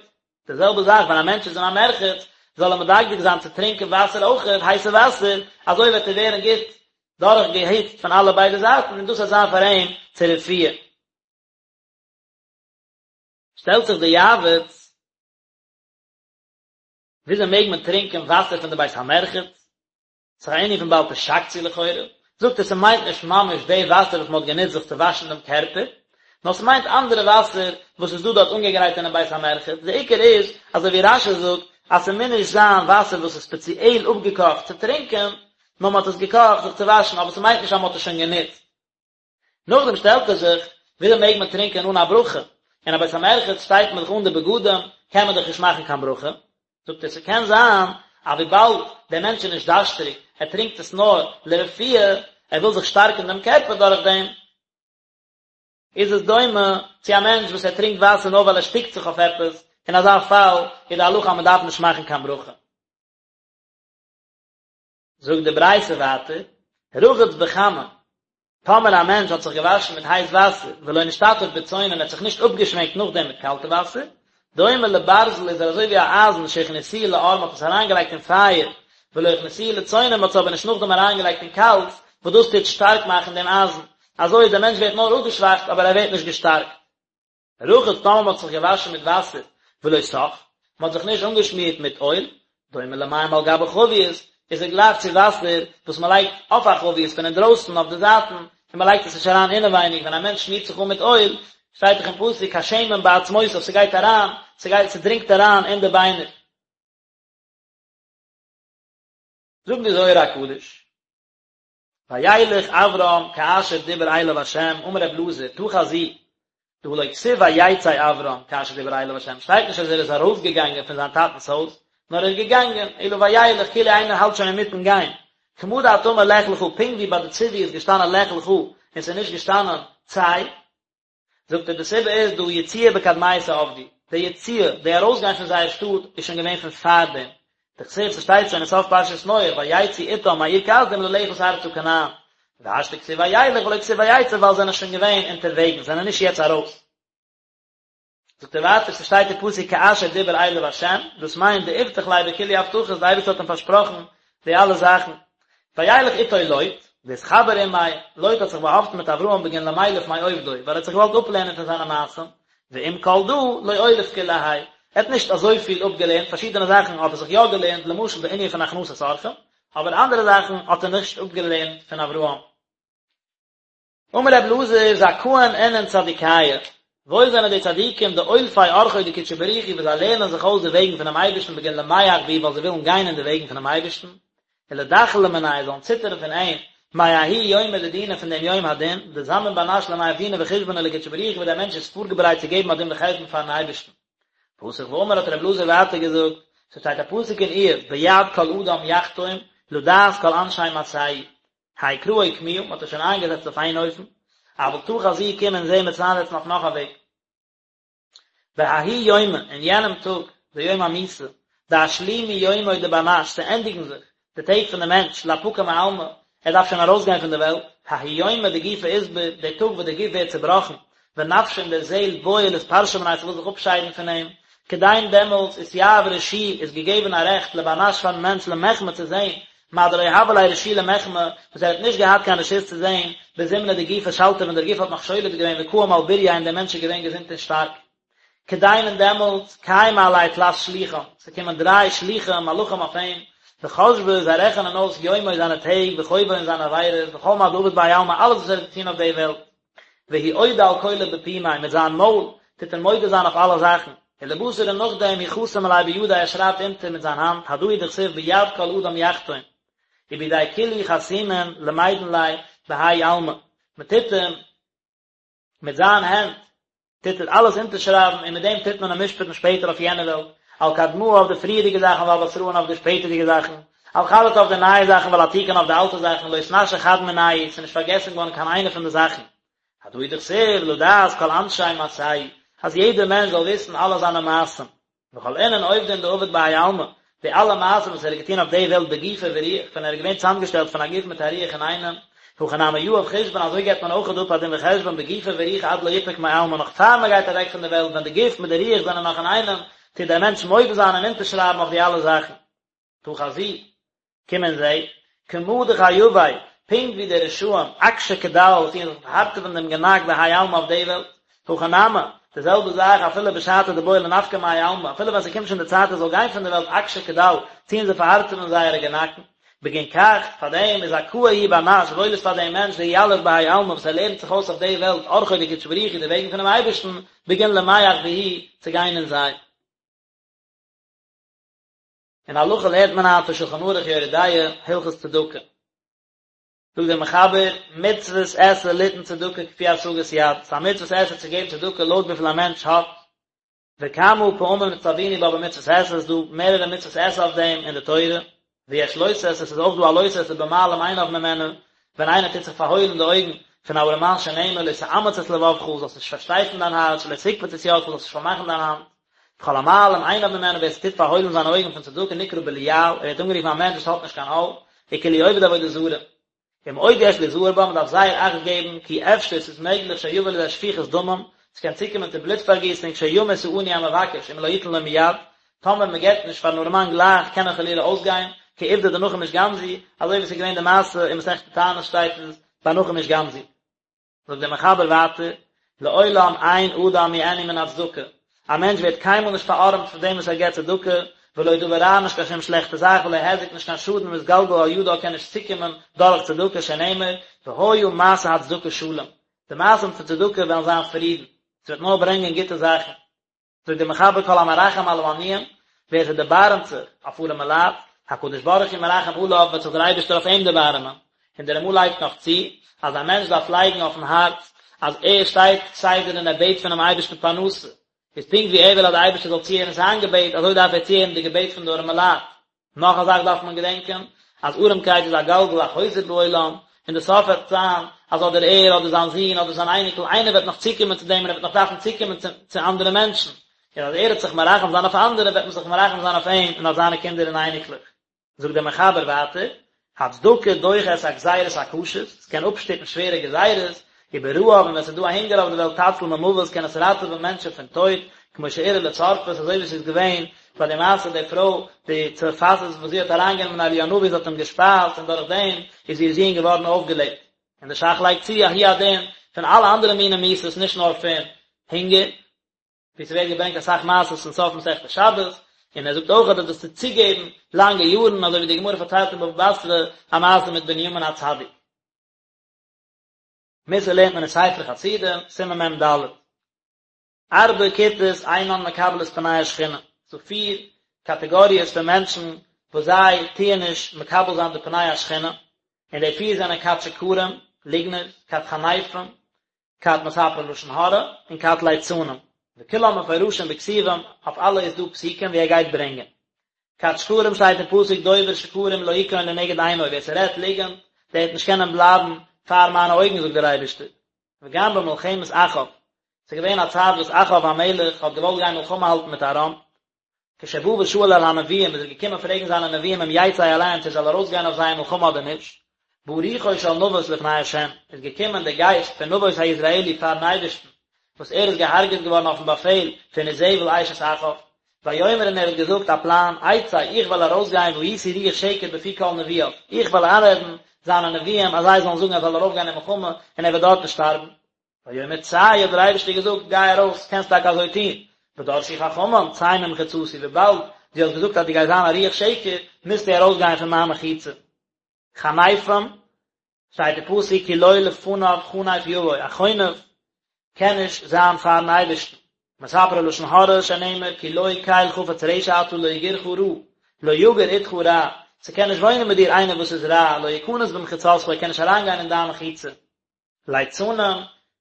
די זעלבע זאך ווען א מענטש איז אין א מרחץ זאל ער מדקדק זיין צו טרינקען וואסער אויכעט, הייסע וואסער, אזוי וועט ער ווערן גוט דורך געהיצט פון אלע ביידע זייטן און דאס וועט זיין פאר אים צו רפואה. שטעלט זיך די יעבץ, וויאזוי מעג מען טרינקען וואסער פון די בית המרחץ? ס'איז א ענין פון בל תשקצו לכאורה, זאגט ער ס'מיינט נישט ממש די וואסער וואס מ'האט גענוצט זיך צו וואשן דעם קערפער, נאר ס'מיינט אנדערע וואסער וואס איז דא דארט אנגעגרייט אינעם בית המרחץ, די עיקר איז, אזוי ווי רש"י זאגט, אז ס'מוז נישט זיין וואסער וואס איז ספעציעל אפגעקאכט צו טרינקען, נאר מ'האט עס געקאכט זיך צו וואשן, אבער ס'מיינט נישט אז מ'האט עס שוין גענוצט. נאכדעם שטעלט ער זיך, וויאזוי מעג מען טרינקען אן א ברכה? אין א בית המרחץ שטייט מען דאך אן די בגדים, קען מען דאך נישט מאכן קיין ברכה. זאגט ער, ס'קען זיין אז וויבאלד דער מענטש איז נישט דארשטריג, ער טרינקט עס נאר לרפואה, ער וויל זיך שטארקן דעם קערפער דורך דעם, איז עס דומה צו א מענטש וואס ער טרינקט וואסער נאר ווייל ער שטיקט זיך אויף עפעס, אין אזא פאל איז די הלכה אז מען דארף נישט מאכן קיין ברכה. זאגט די ברייתא ווייטער, רחץ בחמין, טאמער א מענטש האט זיך געוואשן מיט הייס וואסער, ולא נשתטף בצונן און ער האט זיך נישט אפגעשווענקט נאכדעם מיט קאלטע וואסער, דומה לברזל איז ער אזוי ווי א אייזן שהכניסוהו לאור מען האט עס אריינגעלייגט אין פייער, ולא הכניסוהו לצונן מען האט עס אבער נישט נאכדעם אריינגעלייגט אין קאלטס, וואס דאס טוט שטארק מאכן דעם אייזן, אזוי דער מענטש ווערט נאר אפגעשוואכט אבער ער ווערט נישט געשטארקט. רחץ טאמער מען האט זיך געוואשן מיט וואסער ולא סך, מען האט זיך נישט אנגעשמירט מיט אויל, דומה למים על גבי חבית, איז ער גלייך צו וואסער וואס מען לייגט אויף א חבית פון אינדרויסן אויף די זייטן, און מען לייגט עס נישט אריין אינעווייניג, ווען א מענטש שמירט זיך אן מיט אויל, שטייט דאך אין פסוק כשמן בעצמותיו, ס'גייט אריין, ס'גייט, ס'דרינגט אריין אין די ביינער. זאגט די זוהר הקדוש. וילך אברם כאשר דיבר אליו ה', אמר רב אלעזר, תא חזי, דהא לא כתיב ויצא אברם כאשר דיבר אליו ה', שטייט נישט אז ער איז ארויסגעגאנגען פון זיין טאטנ'ס הויז, נאר ער איז געגאנגען, אלא וילך, כאילו איינער האלט שוין אינמיטן גיין, כמה דאת אמר לך לך, פונקט ווי ביי די ציווי איז געשטאנען לך לך, און ס'איז נישט געשטאנען צא. זאגט ער די סיבה איז דהא יציאה בקדמיתא עבדי, די יציאה, די ארויסגיין פון זייער שטאט איז שוין געווען פון פארדעם, דכתיב ס'שטייט שוין אין סוף פרשת נח ויצאו אתם מאור כשדים ללכת ארצה כנען, והשתא כתיב וילך ולא כתיב ויצא ווייל זענען שוין געווען אונטערוועגנס, זענען נישט יעצט ארויס. זאגט ער ווייטער ס'שטייט אין פסוק כאשר דיבר אליו ה', דאס מיינט דאיבטח ליה בכולהו הבטחות, די אייבערשטער האט אים פארשפראכן די אלע זאכן, וילך איתו לוט, ואתחבר עמיה, לוט האט זיך באהאפטן מיט אברהם בגין למילף מעובדוי, ווייל ער האט זיך געוואלט אפלערנען פון זיינע מעשים, ועם כל דא, לא אוליף כולי האי, ער האט נישט אזויפיל אפגעלערנט, פארשידענע זאכן האט ער זיך יא געלערנט, למשל די ענין פון הכנסת אורחים, אבער אנדערע זאכן האט ער נישט אפגעלערנט פון אברהם. אמר רבי אלעזר, זכאין אינון צדיקיא, וואויל זענען די צדיקים דאולפי ארחוי דקודשא בריך הוא וואס זיי לערנען זיך אויס די וועגן פונעם אייבערשטן בגין למיהך בהו ווייל זיי ווילן גיין אין די וועגן פונעם אייבערשטן, ולדחלא מניה זאלן ציטערן פון אים, מההוא יומא דדינא פון דעם יום הדין, דזמין בר נש למיהב דינא וחושבנא לקודשא בריך הוא וואס דער מענטש איז פארגעברייט צו געבן א דין וחשבון פארן אייבערשטן. פתח ואמר האט רבי אלעזר ווייטער געזאגט, ס'שטייט א פסוק אין איוב, ביד כל אדם יחתום, לדעת כל אנשי מעשהו, האי קרא אוקמוה, מ'האט עס שוין איינגעזעצט אויף איין אופן, אבל תא חזי קום און זעה מ'עט עס איינזעצן אויף נאך א וועג. בההוא יומא, אין יענעם טאג, די יום המיתה, דאשלימו יומוי דבר נש, ס'ענדיגן זיך די טעג פון די מענטש, לאפקא מעלמא, ער דארף שוין ארויסגיין פון די וועלט, ההוא יומא דגופא אתבר, די טאג וואס די גוף ווערט צובראכן, ונפשא און די זעהל בעיא לאתפרשא מניה ס'וויל זיך אפשיידן פון אים, כדין דעמאלטס אתיהב רשו איז געגעבן א רעכט לבר נש פארן מענטש למחמי צו זעהן, מה דלא הוה ליה רשו למחמי, וואס ער האט נישט געהאט קיין רשות צו זעהן, בזמנא דגופא שלטא ווען דער גוף האט נאך שולט געווען וקאים על בורייה און דער מענטש איז געווען געזונט און שטארק. כדין און דעמאלטס, קיימי עליה תלת שלוחין, ס'קומען דריי שלוחים, מלאכים אויף אים, וחשבי, זיי רעכענען אויס יומוי זיינע טעג, וחובוי און זיינע עבירות, וכל מה דעביד בהאי עלמא אלעס וואס ער האט געטון אויף די וועלט. והוא אודי על כולא בפומיה, מיט זיין מויל טוט ער מודה זיין אויף אלע זאכן, ולבתר און נאכדעם הוא חתים עליה בידיה ער שרייבט אונטער מיט זיין האנט, הדא הוא דכתיב ביד כל אדם יחתום, ובידי כולהו חתימין למידן ליה בהאי עלמא, מען טוט אים מיט זיין הענט טוט ער אלעס אונטערשרייבן און מיט דעם טוט מען אים משפט'ן שפעטער אויף יענע וועלט, על קדמאה אויף די פריערדיגע זאכן ועל בתראה און אויף די שפעטערדיגע זאכן, על חדתא אויף די נייע זאכן ועל עתיקין אויף די אלטע זאכן, לא אתנשי חד מינייהו, ס'איז נישט פארגעסן געווארן קיין איינע פון די זאכן. הדא הוא דכתיב לדעת כל אנשי מעשהו, אז יעדער מענטש זאל וויסן אלע זיינע מעשים. וכל אינון עובדין דעביד בהאי עלמא, די אלע מעשים וואס ער האט געטון אויף די וועלט בגופא ורוח, ווען ער איז געווען צוזאמגעשטעלט פון א גוף מיט א רוח אינאיינעם, הכי נמי יהב חושבן אזוי געבט מען אויך אפ א דין וחשבון בגופא ורוחא עד דלא יפוק מעלמא נאך פאר מען גייט אוועק פון די וועלט ווען די גוף מיט די רוח זענען נאך אינאיינעם, טוט דער מענטש מודה זיין און אונטערשרייבן אויף די אלע זאכן. תא חזי, קום און זע, כמה דחייבי, פונקט ווי די רשעים, אקשי קדל, וואס טוען זיך פארהארטעווען דעם גענאק בהאי עלמא אויף די וועלט, הכי נמי, די זעלבע זאך אפילו בשעתא דבעי לנפקא מהאי עלמא, אפילו ווען ס'קומט שוין די צייט ער זאל גיין פון די וועלט אקשי קדל, טוען זיי פארהארטעווען זייערע גענאקן. בגין כך, פאר דעם איז זכאה הוא בר נש, וואויל איז פאר דעם מענטש דיליף בהאי עלמא וואס ער לערנט זיך אויס אויף די וועלט ארחוי דקודשא בריך הוא די וועגן פונעם אייבערשטן, בגין למיהך בהו, צו גיין אין זיי. אין הלכה לערנט מען היינט פון שלחן ערוך יורה דעה, הלכות צדקה. זאגט דער מחבר, מצוות עשה ליתן צדקה כפי השגת יד, ס'איז א מצוות עשה צו געבן צדקה לויט וויפיל א מענטש האט, וכמה פעמים נצטווינו בה במצוות עשה, ס'איז דא מערערע מצוות עשה אויף דעם אין די תורה, ויש לא תעשה, ס'איז אויך דא א לא תעשה במעלים עיניו ממנה, ווען איינער טוט זיך פארהוילן די אויגן פון א ארעמאן שנאמר לא תאמץ את לבבך, זאלסט נישט פארשטייפן דיין הארץ, ולא תקפוץ את ידך, זאלסט נישט פארמאכן דיין האנט. וכל המעלים עיניו ממנו, ווער ס'טוט פארהוילן זיינע אויגן פון צדקה נקרא בליעל, ער ווערט אנגערופן א מענטש וואס האט נישט קיין עול, וכאילו עובד עבודה זרה. ומאוד יש ליזהר בה, מ'דארף זייער אכט געבן, כי אפשר, ס'איז מעגליך שיבוא לידי שפיכות דמים, ס'קען צוקומען צו בלוט פארגיסונג, שימות העני המבקש אם לא יתן לו מיד, טאמער מ'געט נישט פארן ארעמאן גלייך קען ער חלילה אויסגיין, כעובדא דנחום איש גם זו, אזוי ווי ס'איז געווען די מעשה אין מסכת תענית שטייט עס ביי נחום איש גם זו. זאגט דער מחבר ווייטער, לעולם אין אדם מעני מן הצדקה, א מענטש ווערט קיינמאל נישט פארארעמט פון דעם וואס ער געבט צדקה, ולא דבר רע נישט קיין שום שלעכטע זאך, ולא היזק נישט קיין שאדן מתגלגל על ידה קען נישט צוקומען דורך צדקה שנאמר, והיה מעשה הצדקה שלום, די מעשים פון צדקה וועלן זיין פרידן, ס'וועט נאר ברענגען גוטע זאכן. זאגט דער מחבר כל המרחם על העניים, ווער ס'דערבארעמט זיך אויף ארעמע לייט, הקדוש ברוך הוא מרחם עליו, וועט זיך דער אייבערשטער אויף אים דערבארעמען. און דער רמ"א לייגט נאך צו, אז א מענטש דארף לייגן אויפן הארץ, אז ער שטייט כסדר און ער בעט פונעם אייבערשטן פרנסה, איז פונקט ווי ער וויל אז דער אייבערשטער זאל צוהערן זיין געבעט, אזוי דארף ער צוהערן די געבעט פון די ארעמע לייט. נאך א זאך דארף מען געדענקען, אז ארעמקייט איז א גלגל החוזר בעולם, און די סוף וועט זיין אז אדער ער אדער זיין זון אדער זיין אייניקל, איינער וועט נאך צוקומען צו דעם און ער וועט נאך דארפן צוקומען צו צו אנדערע מענטשן, און אז ער וועט זיך מרחם זיין אויף אנדערע וועט מען זיך מרחם זיין אויף אים און אויף זיינע קינדער און אייניקלעך. זאגט דער מחבר ווייטער, הצדקה דוחה את הגזירות הקשות, עס קען אפשטופן שווערע גזירות, וברעב און ווען עס איז דא א הונגער אויף די וועלט תציל ממוות קען עס ראטעווען מענטשן פון טויט, כמו שאירע לצרפת אזוי ווי עס איז געווען ביי די מעשה די פרוי די צרפתית וואס זי האט אריינגענומען אליהו הנביא זי האט אים געשפייזט און דורך דעם איז איר זון געווארן אויפגעלעבט. און די ש"ך לייגט צו אז הוא הדין פון אלע אנדערע מיני מיתות נישט נאר פון הונגער. ווי ס'ווערט געברענגט אסאך מעשות אין סוף מסכת שבת, און ער זאגט אויך אז דאס טוט צוגעבן לאנגע יארן, אזוי ווי די גמרא פארציילט אין בבא בתרא א מעשה מיט בנימין הצדיק. מוסר לערנט מען אין ספר חסידים, סימן מ"ד. ארבע כיתות אינן מקבלות פני השכינה, ס'דא פיר קאטעגאריעס פון מענטשן וואס זיי טוען נישט מקבל זיין די פני השכינה, און די פיר זענען כת שקרים, ליגנערס, כת חניפים, כת מספרי לשון הרע, און כת ליצנים, וכולם מפורשים בכתובים, אויף אלע איז דא פסוקים ווי ער גייט ברענגען. כת שקרים שטייט אין פסוק דובר שקרים לא יכון לנגד עיני, ווער ס'רעדט ליגענט, דער וועט נישט קענען בלייבן פאר מיינע אויגן זאגט דער אייבערשטער. וגם במלחמת אחאב, ס'איז געווען א צייט וואס אחאב המלך האט געוואלט גיין מלחמה האלטן מיט ארם, כשבא ושאל אל הנביאים איז ער געקומען פרעגן זיינע נביאים אם יצא אליהם צו ער זאל ארויסגיין אויף זיי אין מלחמה אדער נישט, בא רוחו של נבות לפני ה', איז געקומען דער גייסט פון נבות היזרעאלי פארן אייבערשטן, וואס ער איז געהארגעט געווארן אויפן באפעל פון איזבל אשת אחאב, ויאמר און ער האט געזאגט א פלאן, אצא, איך וועל ארויסגיין והייתי רוח שקר בפי כל נביאיו, איך וועל איינרעדן זיינע נביאים אז זיי זאלן זאגן ער זאל ארויפגיין אין מלחמה און ער וועט דארטן שטארבן. ויאמר צא, האט דער אייבערשטער געזאגט, גיי ארויס, קענסט טאקע אזוי טון, ודרשו חכמים, צא ממחיצתי, וויבאלד דו האסט געזאגט אז דו גייסט זיין א רוח שקר, מוזטו ארויסגיין פון מיין מחיצה. חניפים, שטייט אין פסוק כי לא לפניו חנף יבוא, א חונף קען נישט זיין פארן אייבערשטן. מספרי לשון הרע שנאמר כי לא קל חפץ רשע אתה לא יגורך רע, לא יגור אתך רע, ס'קען נישט וואוינען מיט דיר איינער וואס איז רע, לא יכנס במחיצתך, ער קען נישט אריינגיין אין דיין מחיצה. ליצנים,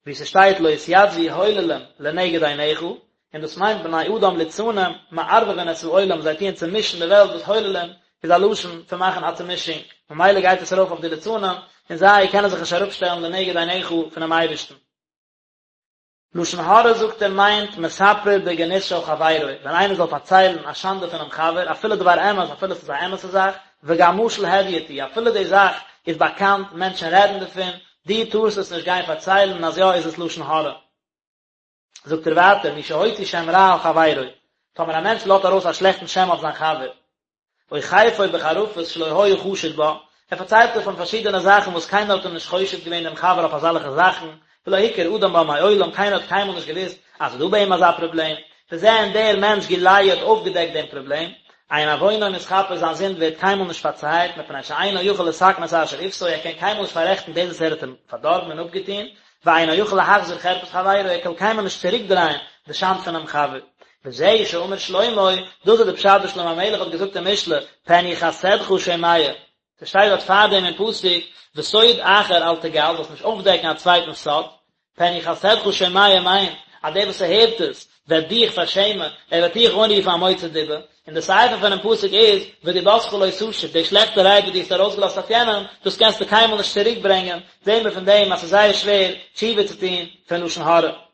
ווי ס'שטייט לא יתיצבו הוללים לנגד עיניך, און דאס מיינט בני אדם ליצנים, מערבבין את העולם, זיי טוען צעמישן די וועלט, וואס הוללים איז א לשון פון מאכן א צעמישונג, ממילא גייט עס ארויף אויף די ליצנים, און זיי קענען זיך נישט אראפשטעלן לנגד עיניך פונעם אייבערשטן. לשון הרע זאגט ער מיינט מספר בגנות של חברו, ווען איינער זאל פארציילן א שאנדע פונעם חבר, אפילו דבר אמת, אפילו עס איז א אמת'ע זאך, וגם משל הדיוט הוא, אפילו די זאך איז באקאנט, מענטשן רעדן דערפון, דו טארסט עס נישט גיין פארציילן, אז יא איז עס לשון הרע. זאגט ער ווייטער, מי שהוציא שם רע על חברו, טאמער א מענטש לאזט ארויס א שלעכטן שם אויף זיין חבר, או חרפו בחרפות שלא היה חשוד בה, ער פארציילט אויף אים פארשידענע זאכן וואס קיינער האט אים נישט חושד געווען דעם חבר אויף אזאלעכע זאכן, ולא הכיר אדם בה מעולם, קיינער האט קיינמאל נישט געוואוסט אז ס'איז דא ביי אים אזא פראבלעם, וזה און דער מענטש גילהו האט אויפגעדעקט דעם פראבלעם, אין עוונו מתכפר זיין זינד ווערט קיינמאל נישט פארצייעט, מפני שאינו יכול לתקן את אשר עוותו, ער קען קיינמאל נישט פאררעכטן דאס וואס ער האט אים פארדארבן און אפגעטון, ואינו יכול להחזיר חרפת חברו, ער קען קיינמאל נישט צוריקדרייען די שאנד פונעם חבר. וזהו שאמר שלמה, דאס איז די פשט וואס שלמה המלך האט געזאגט אין משלי, פן יחסדך שומע. ס'שטייט דארט פארדעם אין פסוק, וסוד אחר אל תגל, זאלסט נישט אויפדעקן א צווייטנס סוד, פן יחסדך שומע מיינט, אז דער וואס ס'הערט עס וועט דיך פארשעמען, ער וועט דיך אנרופן א מוציא דיבה, און די סיפא פונעם פסוק איז, ודיבתך לא תשוב, די שלעכטע רייד וואס דו האסט ארויסגעלאזט אויף יענעם, דאס קענסטו קיינמאל נישט צוריק ברענגען, זעהן מיר פון דעם אז ס'איז זייער שווער תשובה צו טון פון לשון הרע.